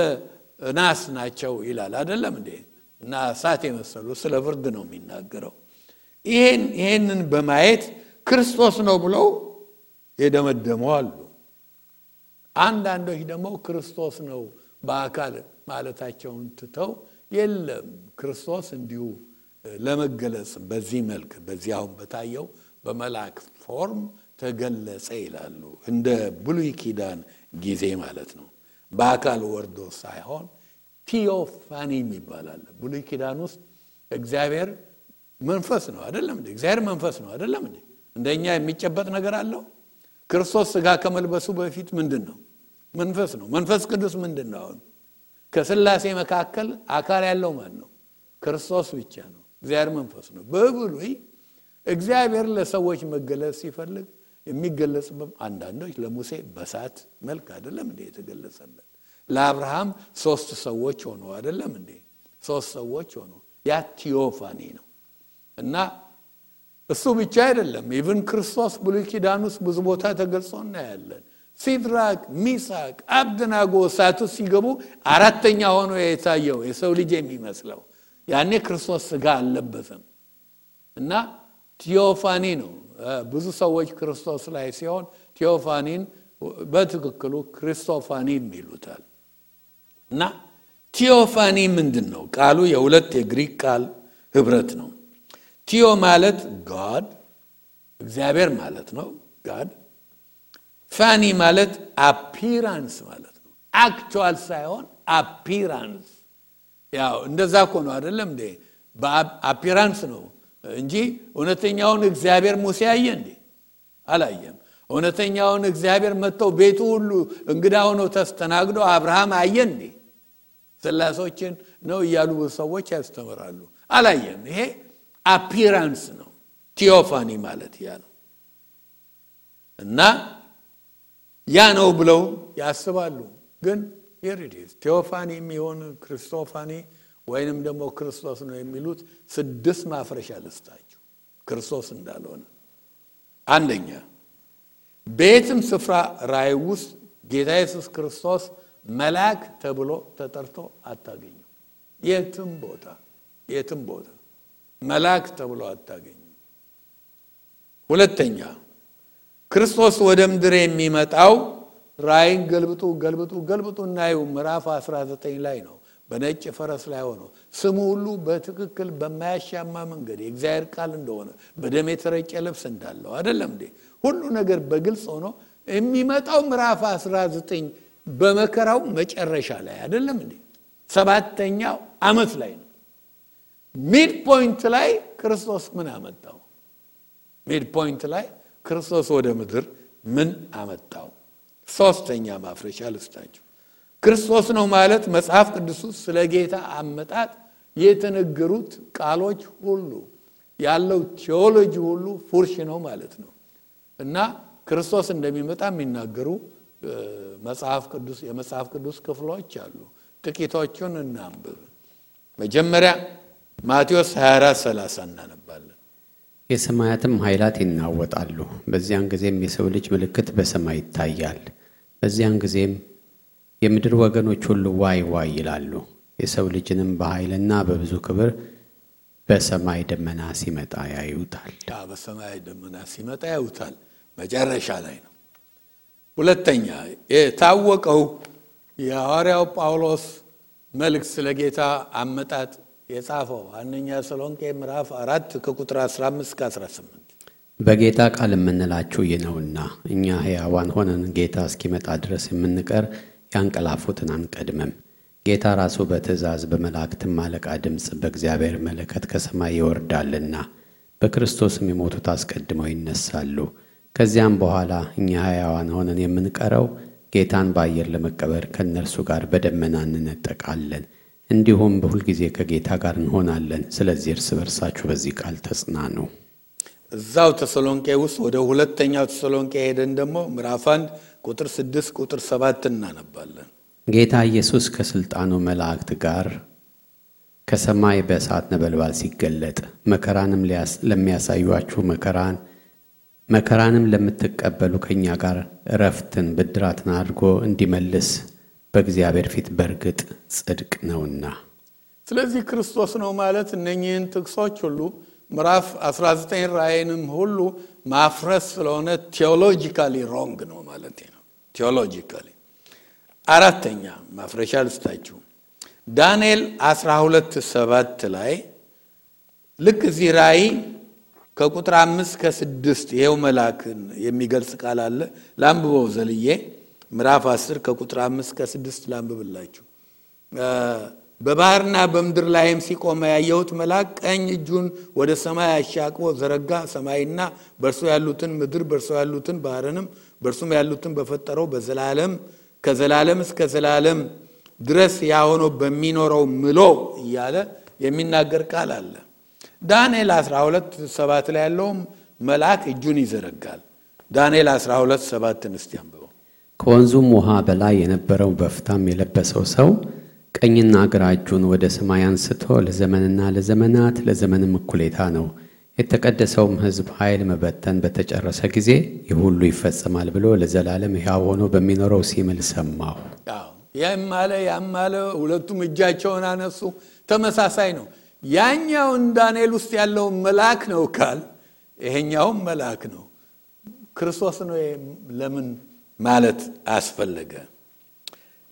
B: ናስ ናቸው ይላል አይደለም እንዴ? እና እሳት የመሰሉ ስለ ፍርድ ነው የሚናገረው። ይሄንን በማየት ክርስቶስ ነው ብለው የደመደሙ አሉ። አንዳንዶች ደግሞ ክርስቶስ ነው በአካል ማለታቸውን ትተው የለም ክርስቶስ እንዲሁ ለመገለጽ በዚህ መልክ በዚህ አሁን በታየው በመልአክ ፎርም ተገለጸ ይላሉ። እንደ ብሉይ ኪዳን ጊዜ ማለት ነው። በአካል ወርዶ ሳይሆን ቲዮፋኒ ይባላል። ብሉይ ኪዳን ውስጥ እግዚአብሔር መንፈስ ነው አይደለም እንዴ? እግዚአብሔር መንፈስ ነው አይደለም እንዴ? እንደኛ የሚጨበጥ ነገር አለው? ክርስቶስ ሥጋ ከመልበሱ በፊት ምንድነው? መንፈስ ነው። መንፈስ ቅዱስ ምንድነው? ከሥላሴ መካከል አካል ያለው ማን ነው? ክርስቶስ ብቻ ነው። እግዚአብሔር መንፈስ ነው። በብሉይ እግዚአብሔር ለሰዎች መገለጽ ሲፈልግ የሚገለጽበት አንዳንዶች ለሙሴ በሳት መልክ አይደለም እንዴ የተገለጸለት? ለአብርሃም 3 ሰዎች ሆኖ አይደለም እንዴ? 3 ሰዎች ሆኖ ያ ቲዮፋኒ ነው። እና እሱ ብቻ አይደለም፣ ኢቭን ክርስቶስ ብሉይ ኪዳን ውስጥ ብዙ ቦታ ተገልጾ እናያለን። ሲድራቅ ሚሳቅ አብደናጎ እሳቱ ሲገቡ አራተኛ ሆኖ የታየው የሰው ልጅ የሚመስለው ያኔ ክርስቶስ ሥጋ አልለበሰም እና ቲዮፋኒ ነው። ብዙ ሰዎች ክርስቶስ ላይ ሲሆን ቲዮፋኒን በትክክሉ ክርስቶፋኒም ይሉታል። እና ቲዮፋኒ ምንድነው? ቃሉ የሁለት የግሪክ ቃል ህብረት ነው። ቲዮ ማለት God እግዚአብሔር ማለት ነው God። ፋኒ ማለት appearance ማለት ነው። actual ሳይሆን appearance። ያው እንደዛ እኮ ነው አይደለም እንዴ? በappearance ነው እንጂ እውነተኛውን እግዚአብሔር ሙሴ አየ እንዴ? አላየም። እውነተኛውን እግዚአብሔር መጥተው ቤቱ ሁሉ እንግዳ ሆኖ ተስተናግዶ አብርሃም አየ እንዴ? ስላሶችን ነው እያሉ ሰዎች ያስተምራሉ። አላየም። ይሄ appearance ነው። ቲዮፋኒ ማለት ያ ነው። እና ያ ነው ብለው ያስባሉ። ግን here it is ቲዮፋኒ የሚሆን ክርስቶፋኒ ወይንም ደግሞ ክርስቶስ ነው የሚሉት 6 ማፍረሻ ልስጣችሁ ክርስቶስ እንዳልሆነ። አንደኛ ቤትም ስፍራ ራእይ ውስጥ ጌታ ኢየሱስ ክርስቶስ መልአክ ተብሎ ተጠርቶ አታገኙ። የትም ቦታ መልአክ ተብሎ አታገኙ። ሁለተኛ ክርስቶስ ወደ ምድር የሚመጣው ራእይን ገልብጡ እናዩ ምዕራፍ 19 ላይ ነው። በነጭ ፈረስ ላይ ሆኖ ስሙ ሁሉ በትክክል በማያሻማ መንገድ የእግዚአብሔር ቃል እንደሆነ በደም የተረጨ ልብስ እንዳለው አይደለም እንዴ? ሁሉ ነገር በግልጽ ሆኖ የሚመጣው ምዕራፍ 19 በመከራው መጨረሻ ላይ አይደለም እንዴ? 7ኛው ዓመት ላይ ነው። ሚድ ፖይንት ላይ ክርስቶስ ምን አመጣው? ሚድ ፖይንት ላይ ክርስቶስ ወደ ምድር ምን አመጣው? 3ኛ ማፍረሻ ልስጣችሁ። ክርስቶስ ነው ማለት መጽሐፍ ቅዱስ ስለ ጌታ አመጣጥ የተነገሩት ቃሎች ሁሉ ያለው ቲዮሎጂ ሁሉ ፉርሽ ነው ማለት ነው። እና ክርስቶስ እንደሚመጣ የሚናገሩ የመጽሐፍ ቅዱስ ክፍሎች አሉ። ጥቂቶቹን እናንብብ። መጀመሪያ ማቴዎስ 24:30 እናነባለን።
A: የሰማያትም ኃይላት ይናወጣሉ፣ በዚያን ጊዜም የሰው ልጅ ምልክት በሰማይ ይታያል። በዚያን ጊዜም የምድር ወገኖች ሁሉ ዋይ ዋይ ይላሉ። የሰው ልጅንም በኃይልና በብዙ ክብር በሰማይ ደመና ሲመጣ ያዩታል።
B: በሰማይ ደመና ሲመጣ ያዩታል። መጨረሻ ላይ ነው። ሁለተኛ የታወቀው የሐዋርያው ጳውሎስ መልእክት ስለ ጌታ አመጣጥ የጻፈው አንደኛ ተሰሎንቄ ምዕራፍ 4 ከቁጥር 15-18
A: በጌታ ቃል የምንላችሁ ይነውና እኛ ሕያዋን ሆነን ጌታ እስኪመጣ ድረስ የምንቀር ያንቀላፉትን አንቀድምም። ጌታ ራሱ በትእዛዝ በመላእክትም አለቃ ድምፅ በእግዚአብሔር መለከት ከሰማይ ይወርዳልና በክርስቶስም የሞቱት አስቀድመው ይነሳሉ። ከዚያም በኋላ እኛ ሕያዋን ሆነን የምንቀረው ጌታን በአየር ለመቀበል ከእነርሱ ጋር በደመና እንነጠቃለን። እንዲሁም በሁልጊዜ ከጌታ ጋር እንሆናለን። ስለዚህ እርስ በርሳችሁ በዚህ ቃል ተጽናኑ።
B: እዛው ተሰሎንቄ ውስጥ ወደ ሁለተኛው ተሰሎንቄ ሄደን ደግሞ ምዕራፍ 1 ቁጥር 6 ቁጥር 7 እናነባለን።
A: ጌታ ኢየሱስ ከስልጣኑ መላእክት ጋር ከሰማይ በእሳት ነበልባል ሲገለጥ መከራንም ለሚያሳዩአችሁ መከራንም ለምትቀበሉ ከኛ ጋር ዕረፍትን ብድራትን አድርጎ እንዲመልስ በእግዚአብሔር ፊት በርግጥ ጽድቅ ነውና።
B: ስለዚህ ክርስቶስ ነው ማለት እነኚህን ጥቅሶች ሁሉ ምዕራፍ 19 ራእይንም ሁሉ ማፍረስ ስለሆነ ቴዎሎጂካሊ ሮንግ ነው ማለት ነው። ቴዎሎጂካሊ። አራተኛ ማፍረሻ ልስጣችሁ። ዳንኤል 12:7 ላይ ልክ እዚህ ራእይ ከቁጥር 5-6 ይሄው መልአክን የሚገልጽ ቃል አለ። ላንብበው ዘልዬ ምዕራፍ 10 ከቁጥር 5-6 ላንብብላችሁ። በባህርና በምድር ላይም ሲቆም ያየሁት መልአክ ቀኝ እጁን ወደ ሰማይ አሻቅቦ ዘረጋ። ሰማይና በእርሱ ያሉትን ምድር በእርሱ ያሉትን ባህርንም በእርሱም ያሉትን በፈጠረው ከዘላለም እስከ ዘላለም ድረስ ያሆኖ በሚኖረው ምሎ እያለ የሚናገር ቃል አለ። ዳንኤል 12:7 ላይ ያለው መልአክ እጁን ይዘረጋል። ዳንኤል 12:7 እስቲ አንብበው።
A: ከወንዙም ውሃ በላይ የነበረው በፍታም የለበሰው ሰው ቀኝና ግራ እጁን ወደ ሰማይ አንስቶ ለዘመንና ለዘመናት ለዘመንም እኩሌታ ነው የተቀደሰውም ሕዝብ ኃይል መበተን በተጨረሰ ጊዜ ይህ ሁሉ ይፈጸማል ብሎ ለዘላለም ሕያው ሆኖ በሚኖረው ሲምል ሰማሁ።
B: ያማለ ሁለቱም እጃቸውን አነሱ። ተመሳሳይ ነው። ያኛው ዳንኤል ውስጥ ያለው መልአክ ነው ካል ይሄኛው መልአክ ነው። ክርስቶስ ነው ለምን ማለት አስፈለገ?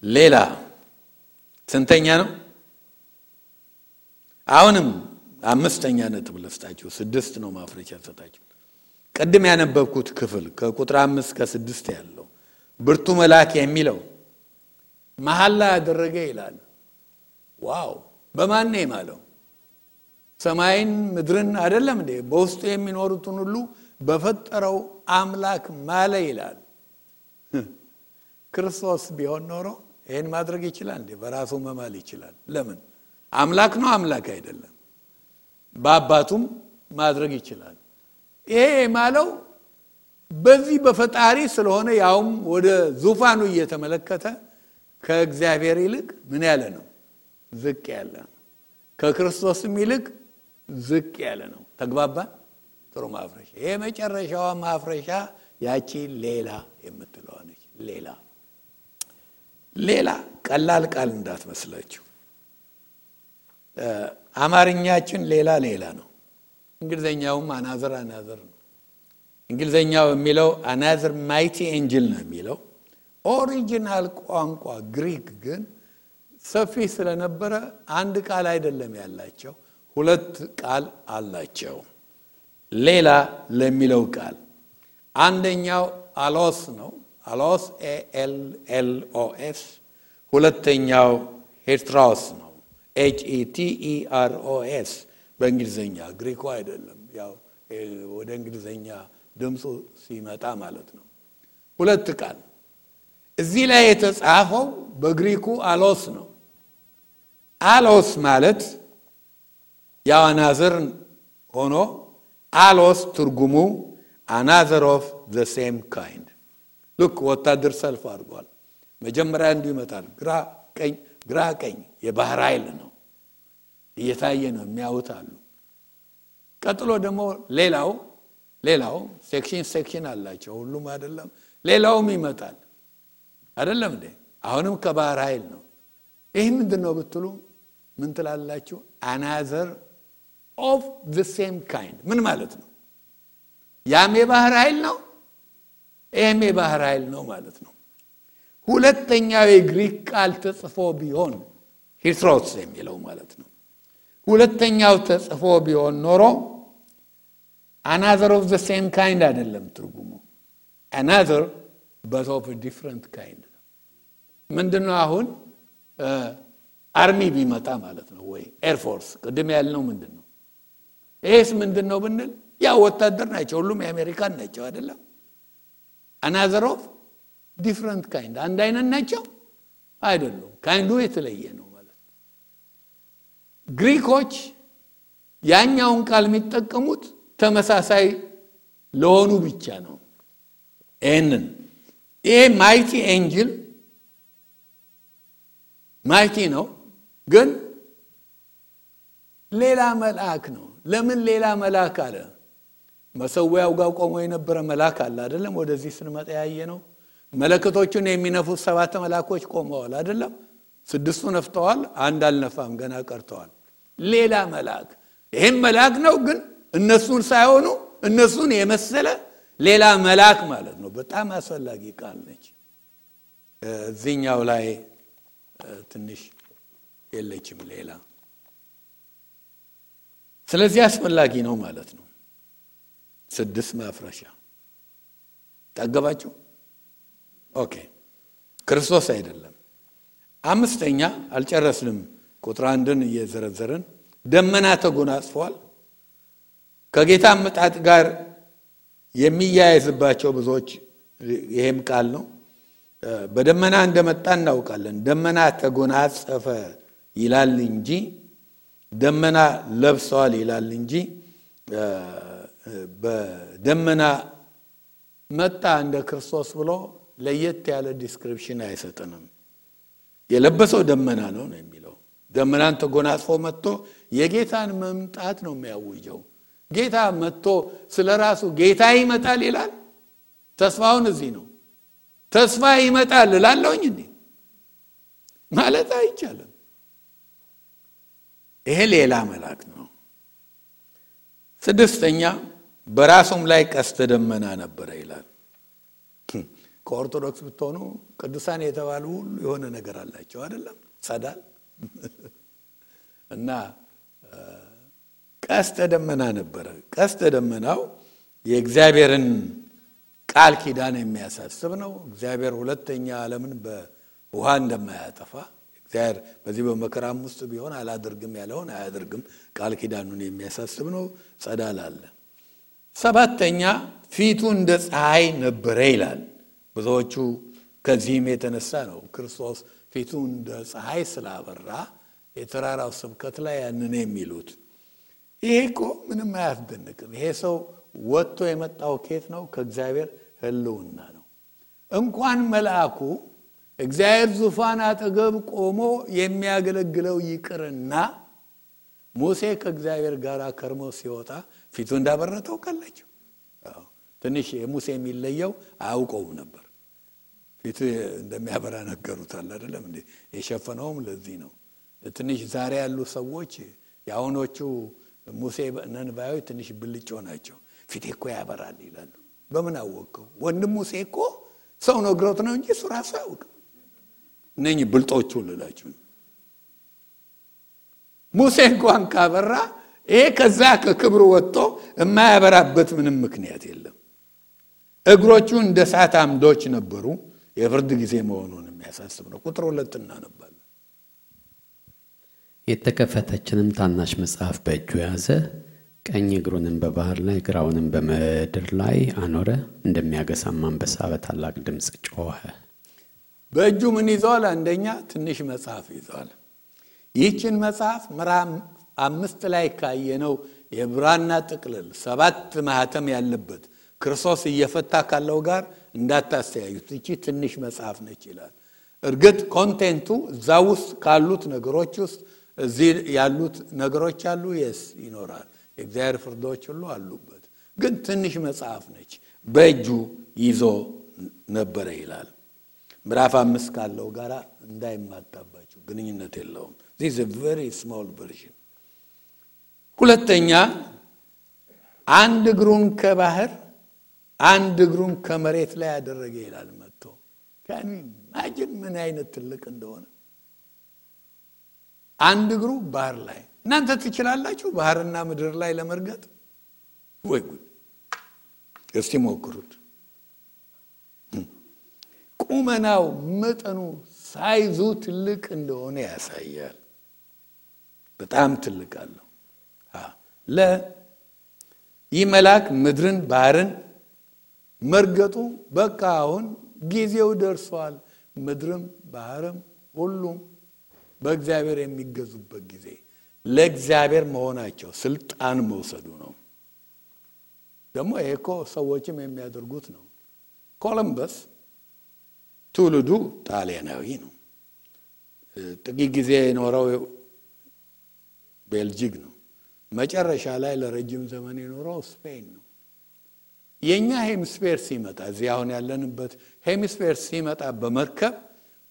B: ሌላ ስንተኛ ነው? አሁንም አምስተኛ ነጥብ ልስጣችሁ። 6 ነው ማፍረቻ ሰጣችሁ። ቀድም ያነበብኩት ክፍል ከቁጥር 5 እስከ 6 ያለው ብርቱ መልአክ የሚለው መሐላ ያደረገ ይላል። ዋው! በማን ነው የማለው? ሰማይን ምድርን አይደለም እንዴ? በውስጡ የሚኖሩትን ሁሉ በፈጠረው አምላክ ማለ ይላል። ክርስቶስ ቢሆን ኖሮ ይሄን ማድረግ ይችላል እንዴ? በራሱ መማል ይችላል። ለምን? አምላክ ነው፣ አምላክ አይደለም። በአባቱም ማድረግ ይችላል። ይሄ ማለው በዚህ በፈጣሪ ስለሆነ ያውም ወደ ዙፋኑ እየተመለከተ ከእግዚአብሔር ይልቅ ምን ያለ ነው? ዝቅ ያለ ነው። ከክርስቶስም ይልቅ ዝቅ ያለ ነው። ተግባባን? ጥሩ ማፍረሻ። ይሄ መጨረሻዋ ማፍረሻ ያቺ ሌላ የምትለው ነች። ሌላ ቀላል ቃል እንዳትመስላችሁ። አማርኛችን ሌላ ነው። እንግሊዘኛውም አናዘር ነው። እንግሊዘኛው የሚለው አናዘር ማይቲ ኤንጅል ነው የሚለው። ኦሪጂናል ቋንቋ ግሪክ ግን ሰፊ ስለነበረ አንድ ቃል አይደለም ያላቸው፣ 2 ቃል አላቸው። ሌላ ለሚለው ቃል አንደኛው አሎስ ነው። አሎስ ALLOS። ሁለተኛው ሄትሮስ ነው። HETEROS በእንግሊዘኛ። ግሪኩ አይደለም፣ ያው ወደ እንግሊዘኛ ድምፁ ሲመጣ ማለት ነው። 2 ቃል እዚህ ላይ የተጻፈው በግሪኩ አሎስ ነው። አሎስ ማለት ያው አናዘር ሆኖ አሎስ ትርጉሙ another of the same kind። ልክ ወታደር ሰልፍ አድርጓል። መጀመሪያ እንዲሁ ይመጣል። ግራ ቀኝ የባህር ኃይል ነው እየታየ ነው የሚያዩት አሉ። ቀጥሎ ደግሞ ሌላው ሴክሽን አላቸው። ሁሉም አይደለም፣ ሌላውም ይመጣል አይደለም እንዴ? አሁንም ከባህር ኃይል ነው። ይሄ ምንድነው ብትሉ ምን ትላላችሁ? another of the same kind ምን ማለት ነው? ያም የባህር ኃይል ነው፣ ይሄም የባህር ኃይል ነው ማለት ነው። ሁለተኛው የግሪክ ቃል ተጽፎ ቢሆን ሂትሮስ የሚለው ማለት ነው። ሁለተኛው ተጽፎ ቢሆን ኖሮ another of the same kind አይደለም ትርጉሙ። another but of a different kind። ምንድነው አሁን አርሚ ቢመጣ ማለት ነው ወይ ኤርፎርስ ቅድም ያልነው ምንድነው? ኤስ ምንድነው ብንል ያ ወታደር ናቸው፣ ሁሉም የአሜሪካን ናቸው አይደለም? another of different kind አንድ አይነት ናቸው አይደሉም። ካይንዱ የተለየ ነው ማለት ነው። ግሪኮች ያኛውን ቃል የሚጠቀሙት ተመሳሳይ ለሆኑ ብቻ ነው። ይሄ ማይቲ ኤንጅል ማይቲ ነው፣ ግን ሌላ መልአክ ነው። ለምን ሌላ መልአክ አለ? መሰዊያው ጋር ቆሞ የነበረ መልአክ አለ አይደለም? ወደዚህ ስንመጣ ያየ ነው። መለከቶቹን የሚነፉት 7 መልአኮች ቆመዋል አይደለም? 6ቱ ነፍተዋል፣ አንድ አልነፋም፣ ገና ቀርተዋል። ሌላ መልአክ። ይሄም መልአክ ነው፣ ግን እነሱን ሳይሆኑ እነሱን የመሰለ ሌላ መልአክ ማለት ነው። በጣም አስፈላጊ ቃል ነች። እዚህኛው ላይ ትንሽ የለችም ሌላ። ስለዚህ አስፈላጊ ነው ማለት ነው። 6 ማፍረሻ ታገባችሁ። ኦኬ፣ ክርስቶስ አይደለም። 5ኛ አልጨረስንም። ቁጥር 1ን እየዘረዘርን ደመና ተጎናጽፏል። ከጌታ መጣጥ ጋር የሚያያዝባቸው ብዙዎች ይሄም ቃል ነው። በደመና እንደመጣ እናውቃለን። ደመና ተጎናጸፈ ይላል እንጂ ደመና ለብሰዋል ይላል እንጂ በደመና መጣ እንደ ክርስቶስ ብሎ ለየት ያለ ዲስክሪፕሽን አይሰጥንም። የለበሰው ደመና ነው የሚለው። ደመናን ተጎናጽፎ መጥቶ የጌታን መምጣት ነው የሚያውጀው። ጌታ መጥቶ ስለራሱ ጌታ ይመጣል ይላል። ተስፋውን እዚህ ነው። ተስፋ ይመጣል እላለሁኝ እንዴ ማለት አይቻልም። ይሄ ሌላ መልአክ ነው። ስድስተኛ በራሱም ላይ ቀስተ ደመና ነበረ ይላል። ከኦርቶዶክስ ብትሆኑ ቅዱሳን የተባሉ ሁሉ የሆነ ነገር አላቸው አይደለም? ጸዳል እና ቀስተ ደመና ነበረ። ቀስተ ደመናው የእግዚአብሔርን ቃል ኪዳን የሚያሳስብ ነው። እግዚአብሔር ሁለተኛ ዓለምን በውሃ እንደማያጠፋ እግዚአብሔር በዚህ በመከራም ውስጥ ቢሆን አላደርግም ያለውን አያደርግም ቃል ኪዳኑን የሚያሳስብ ነው። ጸዳል አለ። ሰባተኛ ፊቱ እንደ ፀሐይ ነበረ ይላል። ብዙዎቹ ከዚህም የተነሳ ነው ክርስቶስ ፊቱ እንደ ፀሐይ ስላበራ የተራራው ስብከት ላይ ያንን የሚሉት። ይሄ እኮ ምንም አያስደንቅም። ይሄ ሰው ወጥቶ የመጣው ከየት ነው? ከእግዚአብሔር ሕልውና ነው። እንኳን መልአኩ እግዚአብሔር ዙፋን አጠገብ ቆሞ የሚያገለግለው ይቅርና ሙሴ ከእግዚአብሔር ጋር ከርሞ ሲወጣ ፊቱ እንዳበረተው ካላችሁ ትንሽ የሙሴ የሚለየው አያውቀውም ነበር። ፊቱ እንደሚያበራ ነገሩታል አይደለም እንዴ? የሸፈነውም ለዚህ ነው። ትንሽ ዛሬ ያሉ ሰዎች ያውኖቹ ሙሴ ነንባዮች ትንሽ ብልጮ ናቸው። ፊቴ እኮ ያበራል ይላሉ። በምን አወቀው? ወንድም ሙሴ እኮ ሰው ነግሮት ነው እንጂ እሱ ራሱ አያውቅም። እነኚህ ብልጦቹ ልላችሁ ሙሴ እንኳን ካበራ ይሄ ከዛ ከክብሩ ወጥቶ የማያበራበት ምንም ምክንያት የለም። እግሮቹ እንደ እሳት አምዶች ነበሩ። የፍርድ ጊዜ መሆኑን የሚያሳስብ ነው። ቁጥር 2 እናነባለን።
A: የተከፈተችንም ታናሽ መጽሐፍ በእጁ ያዘ። ቀኝ እግሩንም በባህር ላይ ግራውንም በምድር ላይ አኖረ። እንደሚያገሳም አንበሳ በታላቅ ድምፅ ጮኸ።
B: በእጁ ምን ይዟል? አንደኛ ትንሽ መጽሐፍ ይዟል። ይህችን መጽሐፍ ምዕራፍ 5 ላይ ካየነው የብራና ጥቅልል 7 ማህተም ያለበት ክርስቶስ እየፈታ ካለው ጋር እንዳታስተያዩት። እቺ ትንሽ መጽሐፍ ነች ይላል። እርግጥ ኮንቴንቱ እዛ ውስጥ ካሉት ነገሮች ውስጥ እዚህ ያሉት ነገሮች አሉ። ይኖራል። የእግዚአብሔር ፍርዶች ሁሉ አሉበት። ግን ትንሽ መጽሐፍ ነች። በእጁ ይዞ ነበረ ይላል። ምዕራፍ 5 ካለው ጋር እንዳይማጣባችሁ፣ ግንኙነት የለውም። this is a very small version። ሁለተኛ አንድ እግሩን ከባህር አንድ እግሩን ከመሬት ላይ ያደረገ ይላል። መጥቶ ካን ኢማጂን ምን አይነት ትልቅ እንደሆነ። አንድ እግሩ ባህር ላይ። እናንተ ትችላላችሁ ባህርና ምድር ላይ ለመርገጥ? ወይ ጉድ! እስቲ ሞክሩት። ቁመናው መጠኑ ሳይዙ ትልቅ እንደሆነ ያሳያል። በጣም ትልቅ አለው። ይህ መልአክ ምድርን ባህርን መርገጡ በቃ አሁን ጊዜው ደርሷል። ምድርም ባህርም ሁሉም በእግዚአብሔር የሚገዙበት ጊዜ፣ ለእግዚአብሔር መሆናቸው ስልጣን መውሰዱ ነው። ደግሞ ይሄ እኮ ሰዎችም የሚያደርጉት ነው። ኮሎምበስ ትውልዱ ጣሊያናዊ ነው። ጥቂት ጊዜ የኖረው ቤልጂክ ነው። መጨረሻ ላይ ለረጅም ዘመን የኖረው ስፔን ነው። የኛ ሄሚስፌር ሲመጣ እዚህ አሁን ያለንበት ሄሚስፌር ሲመጣ በመርከብ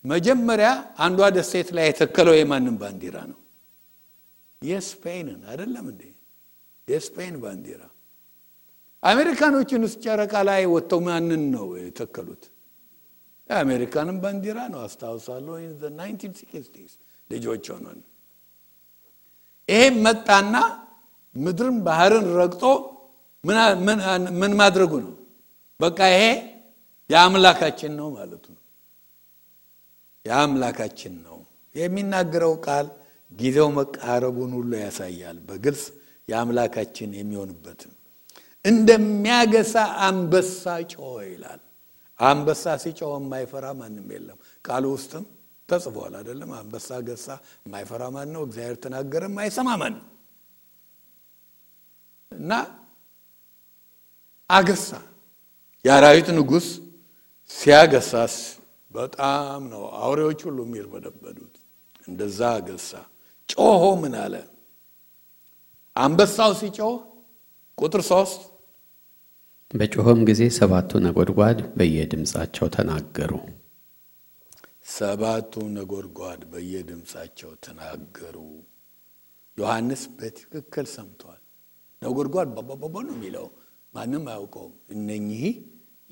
B: መጀመሪያ አንዷ ደሴት ላይ የተከለው የማንን ባንዲራ ነው? የስፔንን አይደለም እንዴ? የስፔን ባንዲራ። አሜሪካኖችን ጨረቃ ላይ ወጥተው ማንን ነው የተከሉት? የአሜሪካንን ባንዲራ ነው። አስታውሳለሁ in the 1960s ልጆች ሆነን ይሄ መጣና ምድርን ባህርን ረግጦ ምን ማድረጉ ነው? በቃ ይሄ የአምላካችን ነው ማለቱ ነው። የአምላካችን ነው የሚናገረው ቃል ጊዜው መቃረቡን ሁሉ ያሳያል። በግልጽ የአምላካችን የሚሆንበት እንደሚያገሳ አንበሳ ጮኸ ይላል። አንበሳ ሲጮህ የማይፈራ ማንም የለም። ቃሉ ውስጥም ተጽፏል አይደለም? አንበሳ ገሳ የማይፈራ ማን ነው? እግዚአብሔር ተናገረ የማይሰማ ማን ነው? እና አገሳ የአራዊት ንጉሥ ሲያገሳስ በጣም ነው አውሬዎች ሁሉ የሚርበደበዱት። እንደዛ ገሳ። ጮሆ ምን አለ? አንበሳው ሲጮህ ቁጥር 3
A: በጮኸም ጊዜ 7ቱ ነጎድጓድ በየድምፃቸው ተናገሩ።
B: 7ቱ ነጎድጓድ በየድምፃቸው ተናገሩ። ዮሐንስ በትክክል ሰምቷል። ነጎድጓድ ባባባባ ነው የሚለው ማንም አያውቀውም። እነኚህ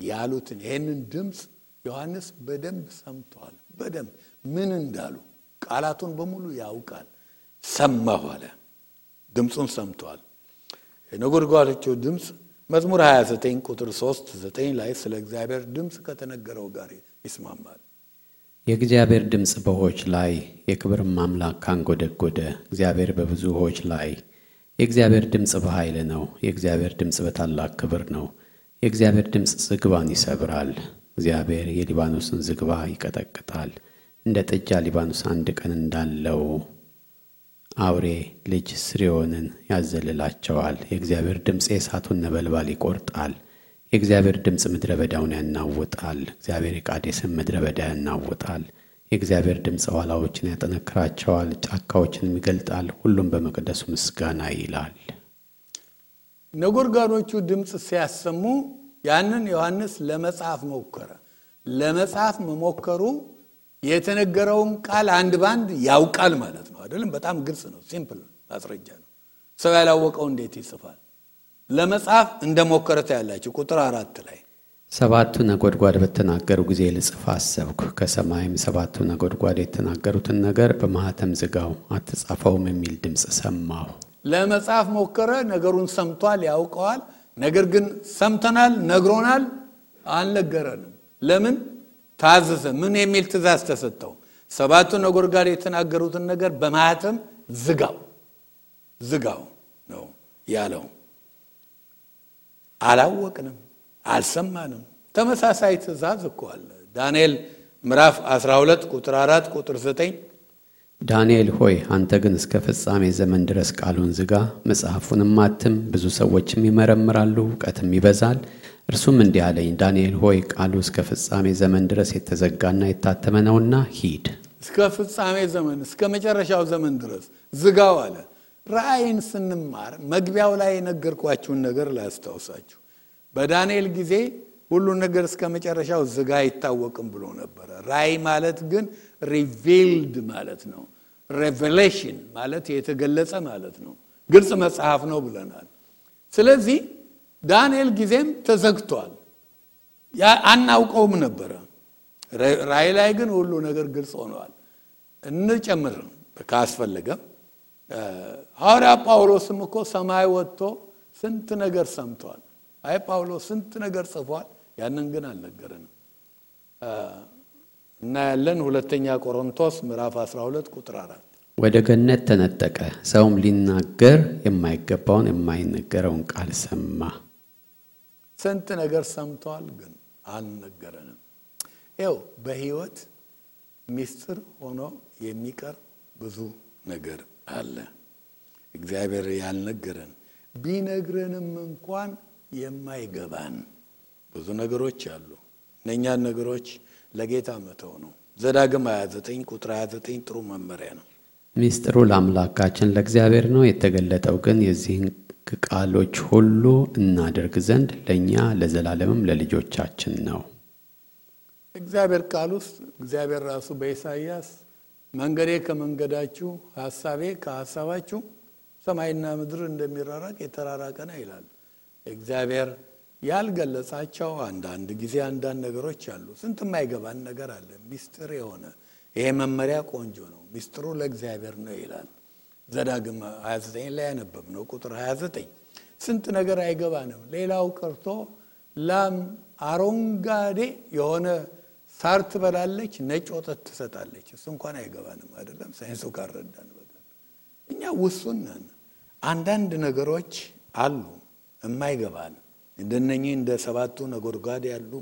B: ያሉትን ይሄንን ድምፅ ዮሐንስ በደንብ ሰምቷል። በደንብ ምን እንዳሉ ቃላቱን በሙሉ ያውቃል። ሰማሁ አለ። ድምፁን ሰምቷል። የነጎድጓዶቹ ድምፅ መዝሙር 29 ቁጥር 3-9 ላይ ስለ እግዚአብሔር ድምፅ ከተነገረው ጋር ይስማማል።
A: የእግዚአብሔር ድምፅ በውኆች ላይ የክብርም አምላክ ካንጎደጎደ እግዚአብሔር በብዙ ውኆች ላይ። የእግዚአብሔር ድምፅ በኃይል ነው። የእግዚአብሔር ድምፅ በታላቅ ክብር ነው። የእግዚአብሔር ድምፅ ዝግባን ይሰብራል። እግዚአብሔር የሊባኖስን ዝግባ ይቀጠቅጣል። እንደ ጥጃ ሊባኖስ አንድ ቀን እንዳለው አውሬ ልጅ ስርዮንን ያዘልላቸዋል። የእግዚአብሔር ድምፅ የእሳቱን ነበልባል ይቆርጣል። የእግዚአብሔር ድምፅ ምድረ በዳውን ያናውጣል። እግዚአብሔር የቃዴስን ምድረ በዳ ያናውጣል። የእግዚአብሔር ድምፅ ዋላዎችን ያጠነክራቸዋል፣ ጫካዎችንም ይገልጣል። ሁሉም በመቅደሱ ምስጋና ይላል።
B: ነጎድጓዶቹ ድምፅ ሲያሰሙ ያንን ዮሐንስ ለመጻፍ ሞከረ። ለመጻፍ መሞከሩ የተነገረውን ቃል አንድ ባንድ ያውቃል ማለት ነው አይደለም? በጣም ግልጽ ነው። ሲምፕል ማስረጃ ነው። ሰው ያላወቀው እንዴት ይጽፋል? ለመጻፍ እንደሞከረታ ያላችሁ ቁጥር 4 ላይ
A: 7ቱ ነጎድጓድ በተናገሩ ጊዜ ልጽፍ አሰብኩ። ከሰማይም 7ቱ ነጎድጓድ የተናገሩትን ነገር በማኅተም ዝጋው፣ አትጻፈውም የሚል ድምፅ ሰማሁ።
B: ለመጻፍ ሞከረ። ነገሩን ሰምቷል፣ ያውቀዋል። ነገር ግን ሰምተናል፣ ነግሮናል፣ አልነገረንም። ለምን? ታዘዘ። ምን የሚል ትእዛዝ ተሰጠው? 7ቱ ነጎድጓድ የተናገሩትን ነገር በማኅተም ዝጋው ነው ያለው። አላወቅንም፣ አልሰማንም። ተመሳሳይ ትእዛዝ እኮ አለ። ዳንኤል ምዕራፍ 12 ቁጥር 4 ቁጥር 9
A: ዳንኤል ሆይ አንተ ግን እስከ ፍጻሜ ዘመን ድረስ ቃሉን ዝጋ፣ መጽሐፉንም አትም፣ ብዙ ሰዎችም ይመረምራሉ፣ እውቀትም ይበዛል። እርሱም እንዲህ አለኝ፣ ዳንኤል ሆይ ቃሉ እስከ ፍጻሜ ዘመን ድረስ የተዘጋና የታተመ ነውና ሂድ።
B: እስከ ፍጻሜ ዘመን እስከ መጨረሻው ዘመን ድረስ ዝጋው አለ። ራእይን ስንማር መግቢያው ላይ የነገርኳችሁን ነገር ላስታውሳችሁ። በዳንኤል ጊዜ ሁሉ ነገር እስከ መጨረሻው ዝጋ አይታወቅም ብሎ ነበር። ራእይ ማለት ግን ሪቪልድ ማለት ነው። ሬቨሌሽን ማለት የተገለጸ ማለት ነው። ግልጽ መጽሐፍ ነው ብለናል። ስለዚህ ዳንኤል ጊዜም ተዘግቷል። አናውቀውም ነበረ። ራእይ ላይ ግን ሁሉ ነገር ግልጽ ሆኗል። እንጨምር ካስፈለገም ሐዋርያ ጳውሎስም እኮ ሰማይ ወጥቶ ስንት ነገር ሰምቷል። አይ ጳውሎስ ስንት ነገር ጽፏል። ያንን ግን አልነገረንም። እና ያለን ሁለተኛ ቆሮንቶስ ምዕራፍ 12 ቁጥር 4
A: ወደ ገነት ተነጠቀ፣ ሰውም ሊናገር የማይገባውን የማይነገረውን ቃል ሰማ።
B: ስንት ነገር ሰምቷል፣ ግን አልነገረንም። ይኸው በህይወት ሚስጥር ሆኖ የሚቀር ብዙ ነገር አለ። እግዚአብሔር ያልነገረን ቢነግረንም እንኳን የማይገባን ብዙ ነገሮች አሉ። እነኛን ነገሮች ለጌታ መተው ነው። ዘዳግም 29 ቁጥር 29 ጥሩ መመሪያ ነው።
A: ሚስጥሩ ለአምላካችን ለእግዚአብሔር ነው፣ የተገለጠው ግን የዚህን ቃሎች ሁሉ እናደርግ ዘንድ ለእኛ ለዘላለምም ለልጆቻችን ነው።
B: እግዚአብሔር ቃል ውስጥ እግዚአብሔር ራሱ በኢሳይያስ መንገዴ ከመንገዳችሁ ሐሳቤ ከሐሳባችሁ ሰማይና ምድር እንደሚራራቅ የተራራቀ ነው ይላል። እግዚአብሔር ያልገለጻቸው አንዳንድ ጊዜ አንዳንድ ነገሮች አሉ። ስንት የማይገባን ነገር አለ። ሚስጥር የሆነ ይሄ መመሪያ ቆንጆ ነው። ሚስጥሩ ለእግዚአብሔር ነው ይላል። ዘዳግም 29 ላይ ያነበብነው ቁጥር 29 ስንት ነገር አይገባንም። ሌላው ቀርቶ ላም አረንጓዴ የሆነ ሳር ትበላለች፣ ነጭ ወተት ትሰጣለች። እሱ እንኳን አይገባንም አይደለም ሳይንሱ ካረዳን በቀር። እኛ ውሱን ነን። አንዳንድ ነገሮች አሉ የማይገባን እንደነኚህ እንደ 7ቱ ነጎድጓድ ያሉ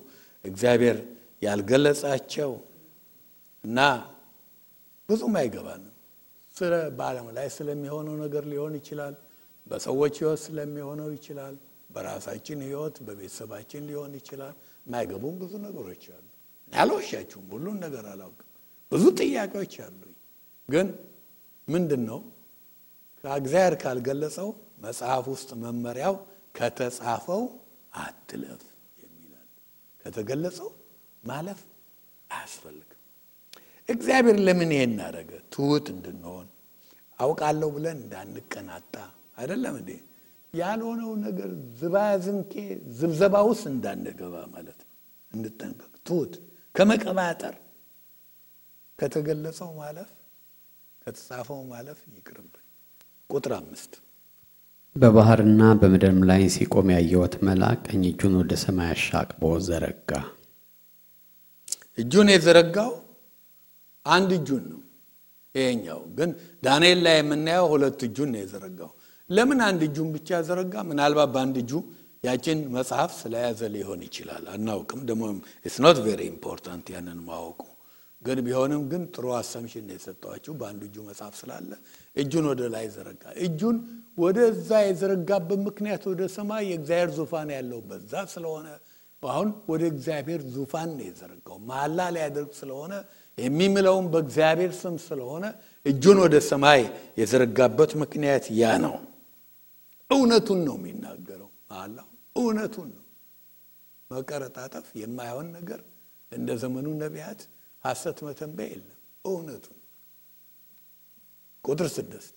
B: እግዚአብሔር ያልገለጻቸው እና ብዙም አይገባንም። ስለ በዓለም ላይ ስለሚሆነው ነገር ሊሆን ይችላል። በሰዎች ሕይወት ስለሚሆነው ይችላል። በራሳችን ህይወት በቤተሰባችን ሊሆን ይችላል። ማይገቡን ብዙ ነገሮች አሉ። አልዋሻችሁም፣ ሁሉን ነገር አላውቅም። ብዙ ጥያቄዎች አሉኝ። ግን ምንድነው ከእግዚአብሔር ካልገለጸው መጽሐፍ ውስጥ መመሪያው ከተጻፈው አትለፍ የሚላል። ከተገለጸው ማለፍ አያስፈልግም። እግዚአብሔር ለምን ይሄን አደረገ? ትሁት እንድንሆን፣ አውቃለሁ ብለን እንዳንቀናጣ አይደለም እንዴ? ያልሆነው ነገር ዝባዝንኬ ዝብዘባ ውስጥ እንዳንገባ ማለት ነው። እንድንጠንቀቅ፣ ትሁት ከመቀባጠር፣ ከተገለጸው ማለፍ፣ ከተጻፈው ማለፍ ይቅርብን። ቁጥር 5
A: በባህርና በምድርም ላይ ሲቆም ያየሁት መልአክ ቀኝ እጁን ወደ ሰማይ አሻቅቦ ዘረጋ።
B: እጁን የዘረጋው አንድ እጁን ነው። ይሄኛው ግን ዳንኤል ላይ የምናየው ሁለት እጁን ነው የዘረጋው። ለምን አንድ እጁን ብቻ ዘረጋ? ምናልባት በአንድ እጁ ያችን መጽሐፍ ስለያዘ ሊሆን ይችላል፣ አናውቅም። ደግሞ it's not very important ያንን ማወቁ። ግን ቢሆንም ግን ጥሩ አሰምሽን ነው የሰጠዋችሁ። በአንድ እጁ መጽሐፍ ስላለ እጁን ወደ ላይ ዘረጋ። እጁን ወደዛ የዘረጋበት ምክንያት ወደ ሰማይ የእግዚአብሔር ዙፋን ያለው በዛ ስለሆነ አሁን ወደ እግዚአብሔር ዙፋን ነው የዘረጋው። መሐላ ሊያደርግ ስለሆነ የሚምለውም በእግዚአብሔር ስም ስለሆነ እጁን ወደ ሰማይ የዘረጋበት ምክንያት ያ ነው። እውነቱን ነው የሚናገረው። መሐላው እውነቱን ነው። መቀረጣጠፍ የማይሆን ነገር እንደ ዘመኑ ነቢያት ሐሰት መተንበይ የለም። እውነቱን። ቁጥር 6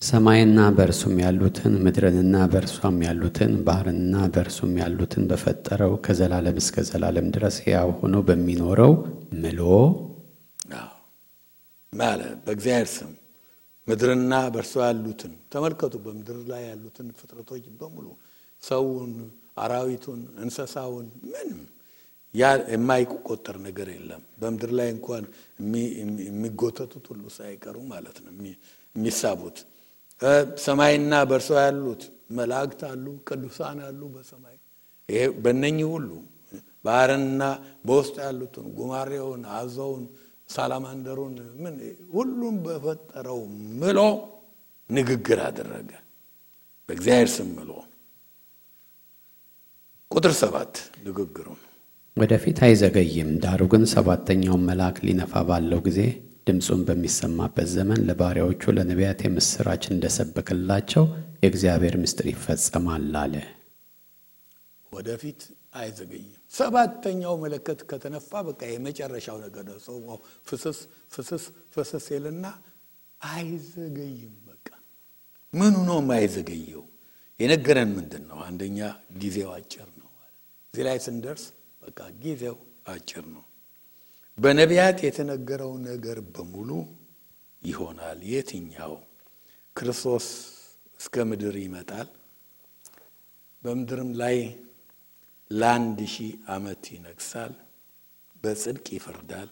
A: ሰማይና በእርሱም ያሉትን ምድርንና በእርሷም ያሉትን ባህርንና በእርሱም ያሉትን በፈጠረው ከዘላለም እስከ ዘላለም ድረስ ሕያው ሆኖ በሚኖረው ምሎ
B: ማለት በእግዚአብሔር ስም ምድርና በእርሷ ያሉትን ተመልከቱ። በምድር ላይ ያሉትን ፍጥረቶች በሙሉ ሰውን፣ አራዊቱን፣ እንስሳውን ምንም የማይቆጠር ነገር የለም። በምድር ላይ እንኳን የሚጎተቱት ሁሉ ሳይቀሩ ማለት ነው የሚሳቡት። ሰማይና በእርሷ ያሉት መላእክት አሉ፣ ቅዱሳን አሉ በሰማይ። ይሄ በእነኚህ ሁሉ ባህርንና በውስጥ ያሉትን ጉማሬውን፣ አዞውን፣ ሳላማንደሩን ምን ሁሉም በፈጠረው ምሎ ንግግር አደረገ። በእግዚአብሔር ስም ምሎ። ቁጥር 7 ንግግሩ
A: ወደፊት አይዘገይም፣ ዳሩ ግን ሰባተኛውን መልአክ ሊነፋ ባለው ጊዜ ድምፁን በሚሰማበት ዘመን ለባሪያዎቹ ለነቢያት የምስራች እንደሰበከላቸው የእግዚአብሔር ምስጢር ይፈጸማል አለ።
B: ወደፊት አይዘገይም። ሰባተኛው መለከት ከተነፋ በቃ የመጨረሻው ነገር ነው። ሰው ፍስስ ፍስስ ፍስስ ይልና አይዘገይም። በቃ ምኑ ነው የማይዘገየው? የነገረን ምንድነው? አንደኛ ጊዜው አጭር ነው ማለት። እዚህ ላይ ስንደርስ በቃ ጊዜው አጭር ነው። በነቢያት የተነገረው ነገር በሙሉ ይሆናል። የትኛው? ክርስቶስ እስከ ምድር ይመጣል፣ በምድርም ላይ ለ1000 ዓመት ይነግሳል፣ በጽድቅ ይፈርዳል፣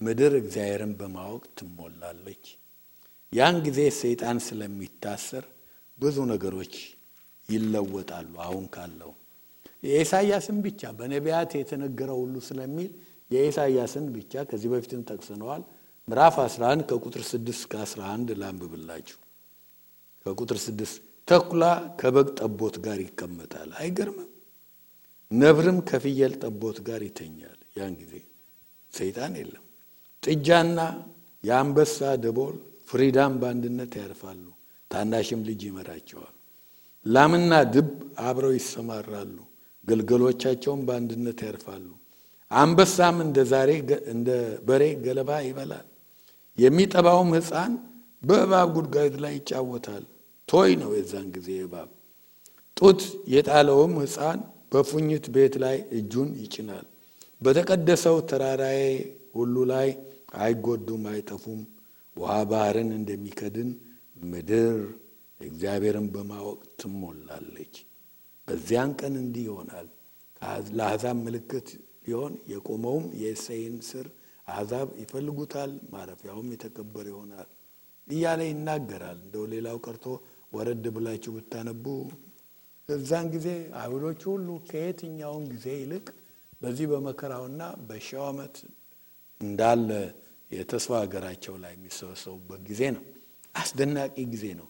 B: ምድር እግዚአብሔርን በማወቅ ትሞላለች። ያን ጊዜ ሰይጣን ስለሚታሰር ብዙ ነገሮች ይለወጣሉ። አሁን ካለው የኢሳይያስን ብቻ በነቢያት የተነገረው ሁሉ ስለሚል የኢሳይያስን ብቻ ከዚህ በፊትም ጠቅሰነዋል። ምዕራፍ 11 ከቁጥር 6 እስከ 11 ላንብብላችሁ። ከቁጥር 6 ተኩላ ከበግ ጠቦት ጋር ይቀመጣል። አይገርምም? ነብርም ከፍየል ጠቦት ጋር ይተኛል። ያን ጊዜ ሰይጣን የለም። ጥጃና የአንበሳ ደቦል ፍሪዳም በአንድነት ያርፋሉ፣ ታናሽም ልጅ ይመራቸዋል። ላምና ድብ አብረው ይሰማራሉ፣ ግልገሎቻቸውም በአንድነት ያርፋሉ። አንበሳም እንደ በሬ ገለባ ይበላል። የሚጠባውም ሕፃን በእባብ ጉድጓድ ላይ ይጫወታል። ቶይ ነው የዛን ጊዜ እባብ። ጡት የጣለውም ሕፃን በፉኝት ቤት ላይ እጁን ይጭናል። በተቀደሰው ተራራዬ ሁሉ ላይ አይጎዱም አይጠፉም። ውሃ ባህርን እንደሚከድን ምድር እግዚአብሔርን በማወቅ ትሞላለች። በዚያን ቀን እንዲህ ይሆናል። ለአሕዛብ ምልክት ሊሆን የቆመውም የእሴይን ሥር አሕዛብ ይፈልጉታል፣ ማረፊያውም የተከበረ ይሆናል እያለ ይናገራል። እንደው ሌላው ቀርቶ ወረድ ብላችሁ ብታነቡ እዛን ጊዜ አይሁዶች ሁሉ ከየትኛውም ጊዜ ይልቅ በዚህ በመከራውና በሺው ዓመት እንዳለ የተስፋ ሀገራቸው ላይ የሚሰበሰቡበት ጊዜ ነው። አስደናቂ ጊዜ ነው።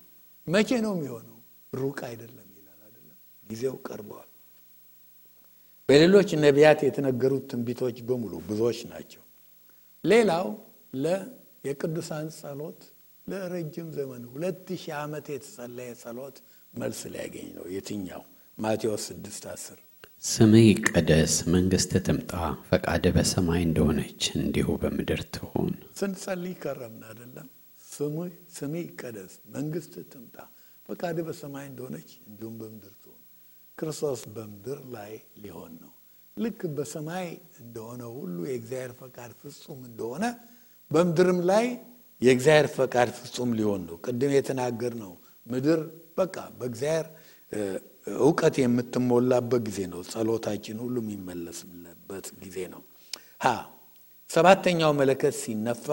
B: መቼ ነው የሚሆነው? ሩቅ አይደለም ይላል አይደለም። ጊዜው ቀርቧል። በሌሎች ነቢያት የተነገሩት ትንቢቶች በሙሉ ብዙዎች ናቸው። ሌላው የቅዱሳን ጸሎት ለረጅም ዘመን 2000 ዓመት የተጸለየ ጸሎት መልስ ሊያገኝ ነው። የትኛው? ማቴዎስ 6:10
A: ስምህ ይቀደስ፣ መንግሥትህ ትምጣ፣ ፈቃድህ በሰማይ እንደሆነች እንዲሁ በምድር ትሁን።
B: ስንጸልይ ከረምን አይደለም? ስምህ ይቀደስ፣ መንግሥትህ ትምጣ፣ ፈቃድህ በሰማይ እንደሆነች እንዲሁም በምድር ትሁን። ክርስቶስ በምድር ላይ ሊሆን ነው። ልክ በሰማይ እንደሆነ ሁሉ የእግዚአብሔር ፈቃድ ፍጹም እንደሆነ በምድርም ላይ የእግዚአብሔር ፈቃድ ፍጹም ሊሆን ነው። ቅድም የተናገርነው ምድር በቃ በእግዚአብሔር ዕውቀት የምትሞላበት ጊዜ ነው። ጸሎታችን ሁሉ የሚመለስበት ጊዜ ነው። ሰባተኛው መለከት ሲነፋ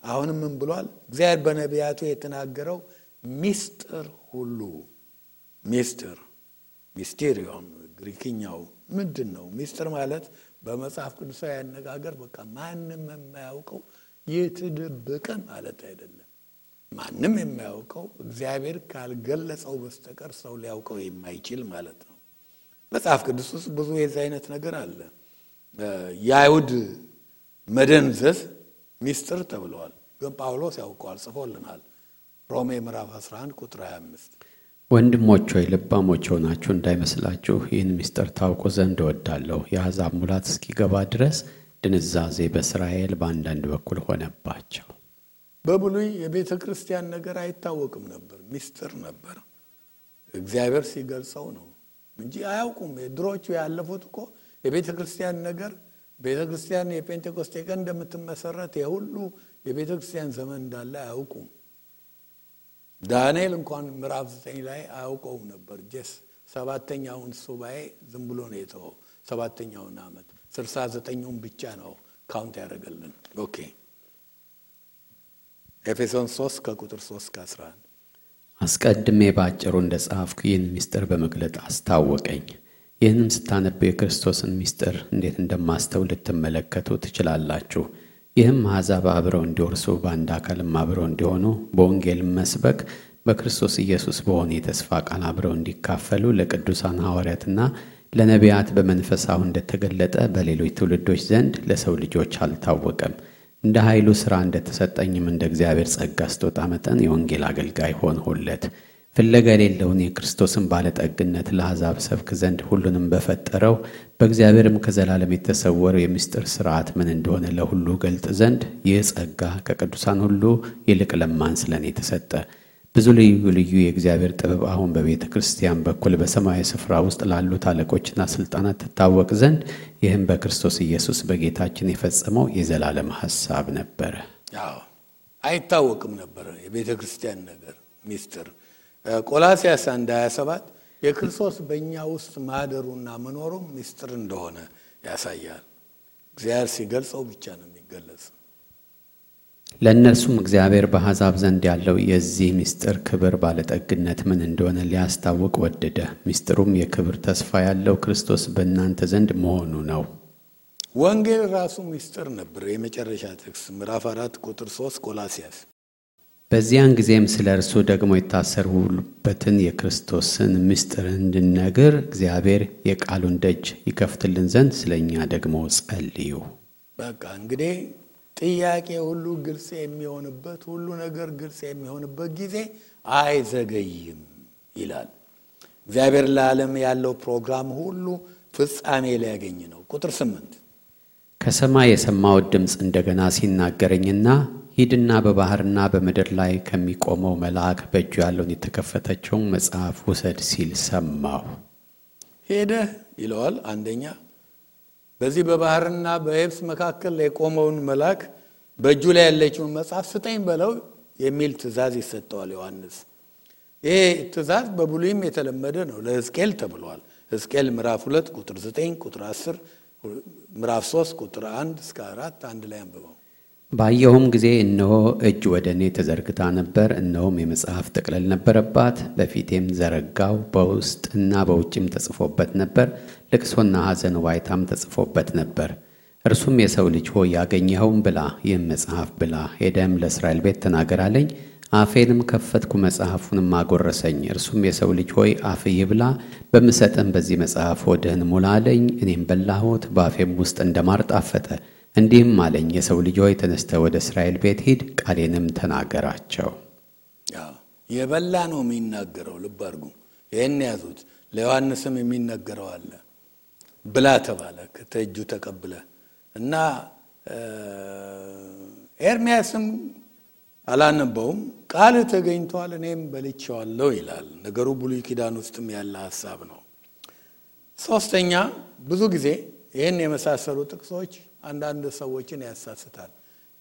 B: አሁንም ምን ብሏል? እግዚአብሔር በነቢያቱ የተናገረው ሚስጥር ሁሉ ሚስቴሪዮን ግሪክኛው ምንድን ነው? ሚስጥር ማለት በመጽሐፍ ቅዱሳዊ አነጋገር በቃ ማንም የማያውቀው የተደበቀ ማለት አይደለም። ማንም የማያውቀው እግዚአብሔር ካልገለጸው በስተቀር ሰው ሊያውቀው የማይችል ማለት ነው። መጽሐፍ ቅዱስ ውስጥ ብዙ የዚህ አይነት ነገር አለ። የአይሁድ መደንዘዝ ሚስጥር ተብለዋል፣ ግን ጳውሎስ ያውቀዋል፣ ጽፎልናል። ሮሜ ምዕራፍ 11 ቁጥር 25
A: ወንድሞች ሆይ ልባሞች ሆናችሁ እንዳይመስላችሁ ይህን ሚስጥር ታውቁ ዘንድ እወዳለሁ። የአሕዛብ ሙላት እስኪገባ ድረስ ድንዛዜ በእስራኤል በአንዳንድ በኩል ሆነባቸው።
B: በብሉይ የቤተ ክርስቲያን ነገር አይታወቅም ነበር፣ ሚስጥር ነበር። እግዚአብሔር ሲገልጸው ነው እንጂ አያውቁም። ድሮቹ ያለፉት እኮ የቤተ ክርስቲያን ነገር ቤተ ክርስቲያን የጴንጤቆስጤ ቀን እንደምትመሰረት የሁሉ የቤተ ክርስቲያን ዘመን እንዳለ አያውቁም። ዳንኤል እንኳን ምዕራፍ 9 ላይ አያውቀውም ነበር። ሰባተኛውን ሱባኤ ዝም ብሎ ነው የተወው። ሰባተኛውን ዓመት 69ውን ብቻ ነው ካውንት ያደረገልን። ኦኬ ኤፌሶን 3 ከቁጥር 3-11
A: አስቀድሜ ባጭሩ እንደጻፍኩ ይህን ሚስጥር በመግለጥ አስታወቀኝ። ይህንም ስታነቡ የክርስቶስን ሚስጥር እንዴት እንደማስተውል ልትመለከቱ ትችላላችሁ። ይህም አሕዛብ አብረው እንዲወርሱ በአንድ አካልም አብረው እንዲሆኑ በወንጌል መስበክ በክርስቶስ ኢየሱስ በሆነ የተስፋ ቃል አብረው እንዲካፈሉ ለቅዱሳን ሐዋርያትና ለነቢያት በመንፈስ አሁን እንደተገለጠ በሌሎች ትውልዶች ዘንድ ለሰው ልጆች አልታወቀም። እንደ ኃይሉ ሥራ እንደተሰጠኝም እንደ እግዚአብሔር ጸጋ ስጦታ መጠን የወንጌል አገልጋይ ሆንሁለት። ፍለጋ የሌለውን የክርስቶስን ባለጠግነት ለአሕዛብ ሰብክ ዘንድ ሁሉንም በፈጠረው በእግዚአብሔርም ከዘላለም የተሰወረው የምስጢር ሥርዓት ምን እንደሆነ ለሁሉ ገልጥ ዘንድ ይህ ጸጋ ከቅዱሳን ሁሉ ይልቅ ለማንስ ለእኔ ተሰጠ። ብዙ ልዩ ልዩ የእግዚአብሔር ጥበብ አሁን በቤተ ክርስቲያን በኩል በሰማያዊ ስፍራ ውስጥ ላሉት አለቆችና ሥልጣናት ትታወቅ ዘንድ ይህም በክርስቶስ ኢየሱስ በጌታችን የፈጸመው የዘላለም ሐሳብ ነበረ።
B: አይታወቅም ነበረ የቤተ ክርስቲያን ነገር ሚስጥር። ቆላስይስ 1:27 የክርስቶስ በእኛ ውስጥ ማደሩና መኖሩ ሚስጥር እንደሆነ ያሳያል። እግዚአብሔር ሲገልጸው ብቻ ነው የሚገለጽ።
A: ለእነርሱም እግዚአብሔር በአሕዛብ ዘንድ ያለው የዚህ ምስጢር ክብር ባለጠግነት ምን እንደሆነ ሊያስታውቅ ወደደ። ምስጢሩም የክብር ተስፋ ያለው ክርስቶስ በእናንተ ዘንድ መሆኑ ነው።
B: ወንጌል ራሱ ምስጢር ነበር። የመጨረሻ ጥቅስ ምዕራፍ 4 ቁጥር 3 ቆላስይስ።
A: በዚያን ጊዜም ስለ እርሱ ደግሞ የታሰሩበትን የክርስቶስን ምስጢር እንድንነግር እግዚአብሔር የቃሉን ደጅ ይከፍትልን ዘንድ ስለ እኛ ደግሞ ጸልዩ።
B: በቃ እንግዲህ ጥያቄ ሁሉ ግልጽ የሚሆንበት ሁሉ ነገር ግልጽ የሚሆንበት ጊዜ አይዘገይም ይላል እግዚአብሔር። ለዓለም ያለው ፕሮግራም ሁሉ ፍጻሜ ሊያገኝ ነው። ቁጥር 8
A: ከሰማይ የሰማሁት ድምፅ እንደገና ሲናገረኝና ሂድና በባህርና በምድር ላይ ከሚቆመው መልአክ በእጁ ያለውን የተከፈተችውን መጽሐፍ ውሰድ ሲል ሰማሁ።
B: ሄደህ ይለዋል። አንደኛ በዚህ በባህርና በየብስ መካከል የቆመውን መልአክ በእጁ ላይ ያለችውን መጽሐፍ ስጠኝ በለው የሚል ትእዛዝ ይሰጠዋል ዮሐንስ። ይሄ ትእዛዝ በብሉይም የተለመደ ነው። ለሕዝቅኤል ተብሏል። ሕዝቅኤል ምዕራፍ 2 ቁጥር 9 ቁጥር 10 ምዕራፍ 3 ቁጥር 1-4 አንድ ላይ አንብበው።
A: ባየሁም ጊዜ እነሆ እጅ ወደ እኔ ተዘርግታ ነበር። እነሆም የመጽሐፍ ጥቅልል ነበረባት። በፊቴም ዘረጋው። በውስጥና በውጭም ተጽፎበት ነበር። ልቅሶና ሐዘን ዋይታም ተጽፎበት ነበር። እርሱም የሰው ልጅ ሆይ ያገኘኸውን ብላ፣ ይህም መጽሐፍ ብላ፣ ሄደም ለእስራኤል ቤት ተናገር አለኝ። አፌንም ከፈትኩ መጽሐፉንም አጎረሰኝ። እርሱም የሰው ልጅ ሆይ አፍህ ይብላ፣ በምሰጥም በዚህ መጽሐፍ ሆድህን ሙላ አለኝ። እኔም በላሁት፣ በአፌም ውስጥ እንደማር ጣፈጠ። እንዲህም አለኝ፣ የሰው ልጅ ሆይ ተነስተህ ወደ እስራኤል ቤት ሂድ፣ ቃሌንም ተናገራቸው።
B: የበላ ነው የሚናገረው። ልብ አድርጉ፣ ይህን ያዙት። ለዮሐንስም የሚነገረው አለ። ብላ ተባለ ከእጁ ተቀብለ እና ኤርምያስም አላነበውም፣ ቃል ተገኝቷል እኔም በልቼዋለሁ ይላል። ነገሩ ብሉይ ኪዳን ውስጥም ያለ ሐሳብ ነው። ሶስተኛ ብዙ ጊዜ ይህን የመሳሰሉ ጥቅሶች አንዳንድ ሰዎችን ያሳስታል።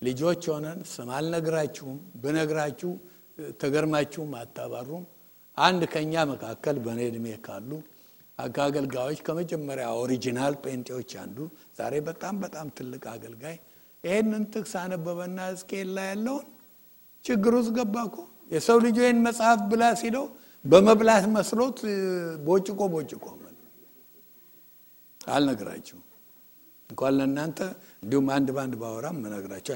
B: ልጆች ሆነን ስም አልነግራችሁም፣ ብነግራችሁ ተገርማችሁም አታባሩም። አንድ ከኛ መካከል በኔ ዕድሜ ካሉ አገልጋዮች ከመጀመሪያ ኦሪጂናል ጴንጤዎች አንዱ ዛሬ በጣም በጣም ትልቅ አገልጋይ ይሄንን ጥቅስ አነበበና ሕዝቅኤል ላይ ያለውን ችግር ውስጥ ገባ እኮ። የሰው ልጅ ይሄን መጽሐፍ ብላ ሲለው በመብላት መስሎት ቦጭቆ አልነግራችሁም። እንኳን ለእናንተ እንዲሁም አንድ ባንድ ባወራም መነግራችሁ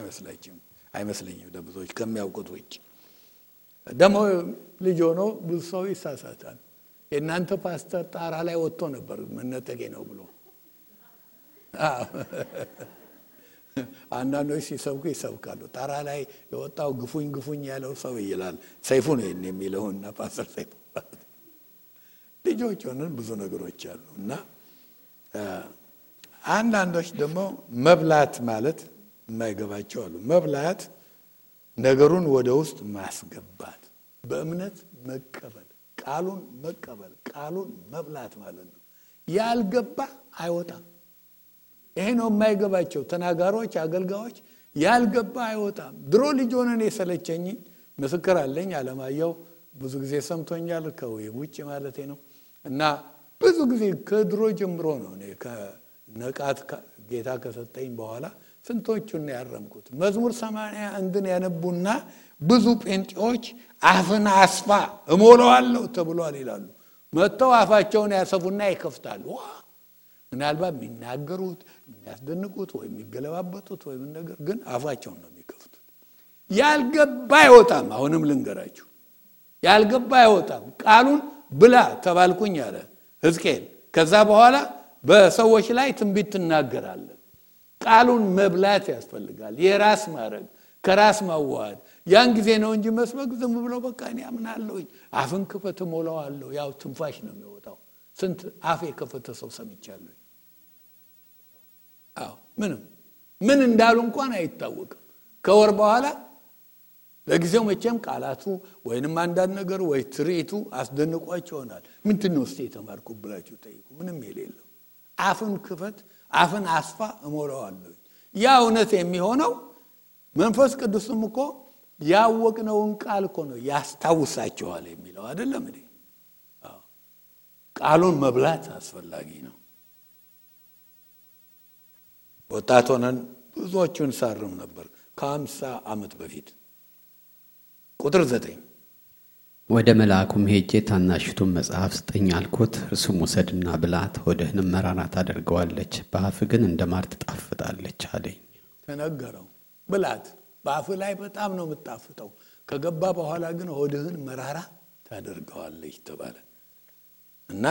B: አይመስለኝም ለብዙዎች ከሚያውቁት ውጭ። ደግሞ ልጅ ሆኖ ብዙ ሰው ይሳሳታል። የእናንተ ፓስተር ጣራ ላይ ወጥቶ ነበር መነጠቄ ነው ብሎ አንዳንዶች ሲሰብኩ ይሰብካሉ። ጣራ ላይ የወጣው ግፉኝ ያለው ሰው ይላል። ሰይፉ ነው የሚለውና ፓስተር ሰይፉ ልጆች ሆነን ብዙ ነገሮች አሉ እና አንዳንዶች ደግሞ መብላት ማለት የማይገባቸው አሉ። መብላት ነገሩን ወደ ውስጥ ማስገባት፣ በእምነት መቀበል፣ ቃሉን መብላት ማለት ነው። ያልገባ አይወጣም። ይሄ ነው የማይገባቸው ተናጋሪዎች፣ አገልጋዮች። ያልገባ አይወጣም። ድሮ ልጅ ሆነን የሰለቸኝ ምስክር አለኝ። አለማየሁ ብዙ ጊዜ ሰምቶኛል፣ ከውጭ ማለቴ ነው። እና ብዙ ጊዜ ከድሮ ጀምሮ ነው እኔ ከነቃት ጌታ ከሰጠኝ በኋላ ስንቶቹን ያረምኩት። መዝሙር 81ን ያነቡና ብዙ ጴንጤዎች አፍን አስፋ እሞላዋለሁ ተብሏል ይላሉ። መጥተው አፋቸውን ያሰፉና ይከፍታሉ። ምናልባት የሚናገሩት የሚያስደንቁት ወይ የሚገለባበጡት ወይ ነገር ግን አፋቸውን ነው የሚከፍቱት። ያልገባ አይወጣም። አሁንም ልንገራችሁ፣ ያልገባ አይወጣም። ቃሉን ብላ ተባልኩኝ አለ ሕዝቅኤል። ከዛ በኋላ በሰዎች ላይ ትንቢት ትናገራለህ። ቃሉን መብላት ያስፈልጋል። የራስ ማድረግ፣ ከራስ ማዋሃድ። ያን ጊዜ ነው እንጂ መስበክ ዝም ብሎ በቃ እኔ አምናለሁኝ አፍን ክፈት እሞላዋለሁ። ያው ትንፋሽ ነው የሚወጣው። ስንት አፍ የከፈተ ሰው ሰምቻለሁ። ምን እንዳሉ እንኳን አይታወቅም። ከወር በኋላ ለጊዜው መቼም ቃላቱ ወይንም አንዳንድ ነገር ወይ ትርኢቱ አስደንቋቸው ይሆናል። ምንድነው እስቲ የተማርኩ ብላችሁ ጠይቁ። ምንም የሌለው አፍን ክፈት፣ አፍን አስፋ እሞላዋለሁ። ያ እውነት የሚሆነው መንፈስ ቅዱስም እኮ ያወቅነውን ቃል እኮ ነው ያስታውሳቸዋል የሚለው አይደለም እንዴ? ቃሉን መብላት አስፈላጊ ነው። ወጣት ሆነን ብዙዎቹን ሳርም ነበር ከ50 ዓመት በፊት። ቁጥር 9
A: ወደ መልአኩም ሄጄ ታናሽቱን መጽሐፍ ስጠኝ አልኩት። እርሱም ውሰድና ብላት፣ ሆድህንም መራራ ታደርገዋለች፣ በአፍ ግን እንደ ማር ትጣፍጣለች አለኝ።
B: ተነገረው፣ ብላት። በአፍ ላይ በጣም ነው የምትጣፍጠው፣ ከገባ በኋላ ግን ሆድህን መራራ ታደርገዋለች ተባለ። እና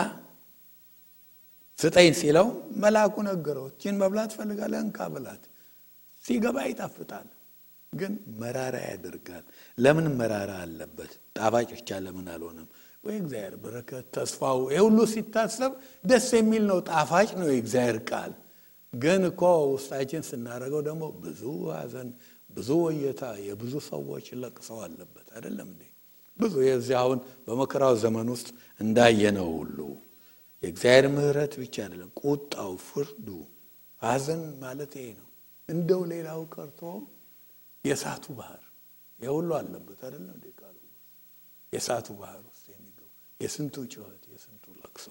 B: ስጠኝ ሲለው መልአኩ ነገረው፣ እቺን መብላት ፈልጋለህ? እንካ ብላት። ሲገባ ይጣፍጣል፣ ግን መራራ ያደርጋል። ለምን መራራ አለበት? ጣፋጭ ብቻ ለምን አልሆነም? ወይ እግዚአብሔር በረከት ተስፋው ሁሉ ሲታሰብ ደስ የሚል ነው፣ ጣፋጭ ነው የእግዚአብሔር ቃል። ግን እኮ ውስጣችን ስናደርገው ደግሞ ብዙ ሐዘን፣ ብዙ ወየታ፣ የብዙ ሰዎች ለቅሰው አለበት አይደለም እንዴ? ብዙ የዚህ አሁን በመከራው ዘመን ውስጥ እንዳየነው ሁሉ የእግዚአብሔር ምሕረት ብቻ አይደለም፣ ቁጣው፣ ፍርዱ፣ ሐዘን ማለት ይሄ ነው። እንደው ሌላው ቀርቶ የእሳቱ ባህር የሁሉ አለበት አይደለም እንዴ? ቃሉ የእሳቱ ባህር ውስጥ የሚገቡ የስንቱ ጩኸት፣ የስንቱ ለቅሶ።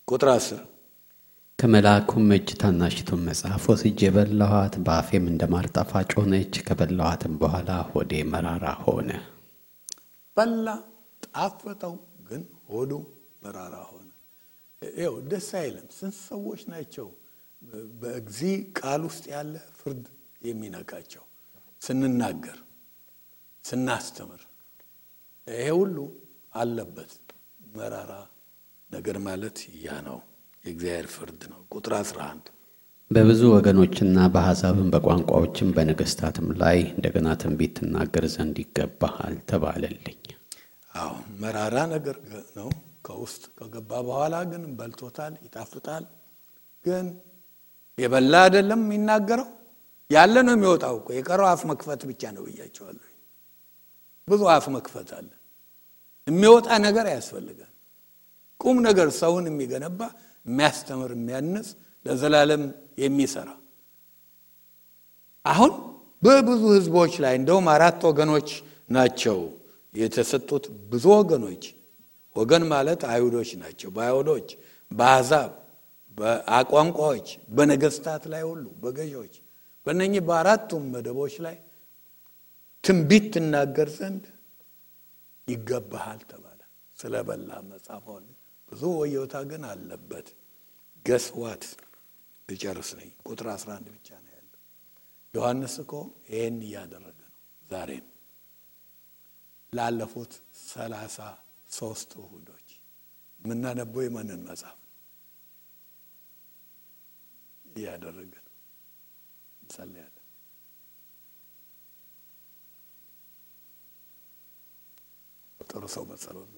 B: ቁጥር 10
A: ከመልአኩም እጅ ታናሽቱን መጽሐፍ ወስጄ በላኋት፣ በአፌም እንደ ማር ጣፋጭ ሆነች። ከበላኋትም በኋላ ሆዴ መራራ ሆነ።
B: በላ፣ ጣፈጠው፣ ግን ሆዱ መራራ ሆነ። ይኸው ደስ አይልም። ስንት ሰዎች ናቸው በእግዚእ ቃል ውስጥ ያለ ፍርድ የሚነካቸው? ስንናገር፣ ስናስተምር፣ ይሄ ሁሉ አለበት። መራራ ነገር ማለት ያ ነው። የእግዚአብሔር ፍርድ ነው። ቁጥር 11
A: በብዙ ወገኖችና በአሕዛብም በቋንቋዎችም በነገሥታትም ላይ እንደገና ትንቢት ትናገር ዘንድ ይገባሃል ተባለልኝ።
B: አዎ መራራ ነገር ነው። ከውስጥ ከገባ በኋላ ግን በልቶታል፣ ይጣፍጣል። ግን የበላ አይደለም የሚናገረው፣ ያለ ነው የሚወጣው እኮ። የቀረው አፍ መክፈት ብቻ ነው ብያቸዋለሁ። ብዙ አፍ መክፈት አለ። የሚወጣ ነገር ያስፈልጋል። ቁም ነገር ሰውን የሚገነባ የሚያስተምር፣ የሚያንጽ፣ ለዘላለም የሚሰራ። አሁን በብዙ ህዝቦች ላይ እንደውም 4 ወገኖች ናቸው የተሰጡት። ብዙ ወገኖች፣ ወገን ማለት አይሁዶች ናቸው። በአይሁዶች፣ በአሕዛብ፣ በቋንቋዎች፣ በነገስታት ላይ ሁሉ፣ በገዢዎች፣ በእነኚህ በአራቱም መደቦች ላይ ትንቢት ትናገር ዘንድ ይገባሃል ተባለ። ስለበላ መጻፈውን ብዙ ወዮታ ግን አለበት። ገስዋት ልጨርስ ነኝ። ቁጥር 11 ብቻ ነው ያለው። ዮሐንስ እኮ ይሄን እያደረገ ነው። ዛሬም ላለፉት 33 እሁዶች የምናነበው የማንን መጽሐፍ እያደረገ ነው? እንጸልያለን። ጥሩ ሰው በጸሎት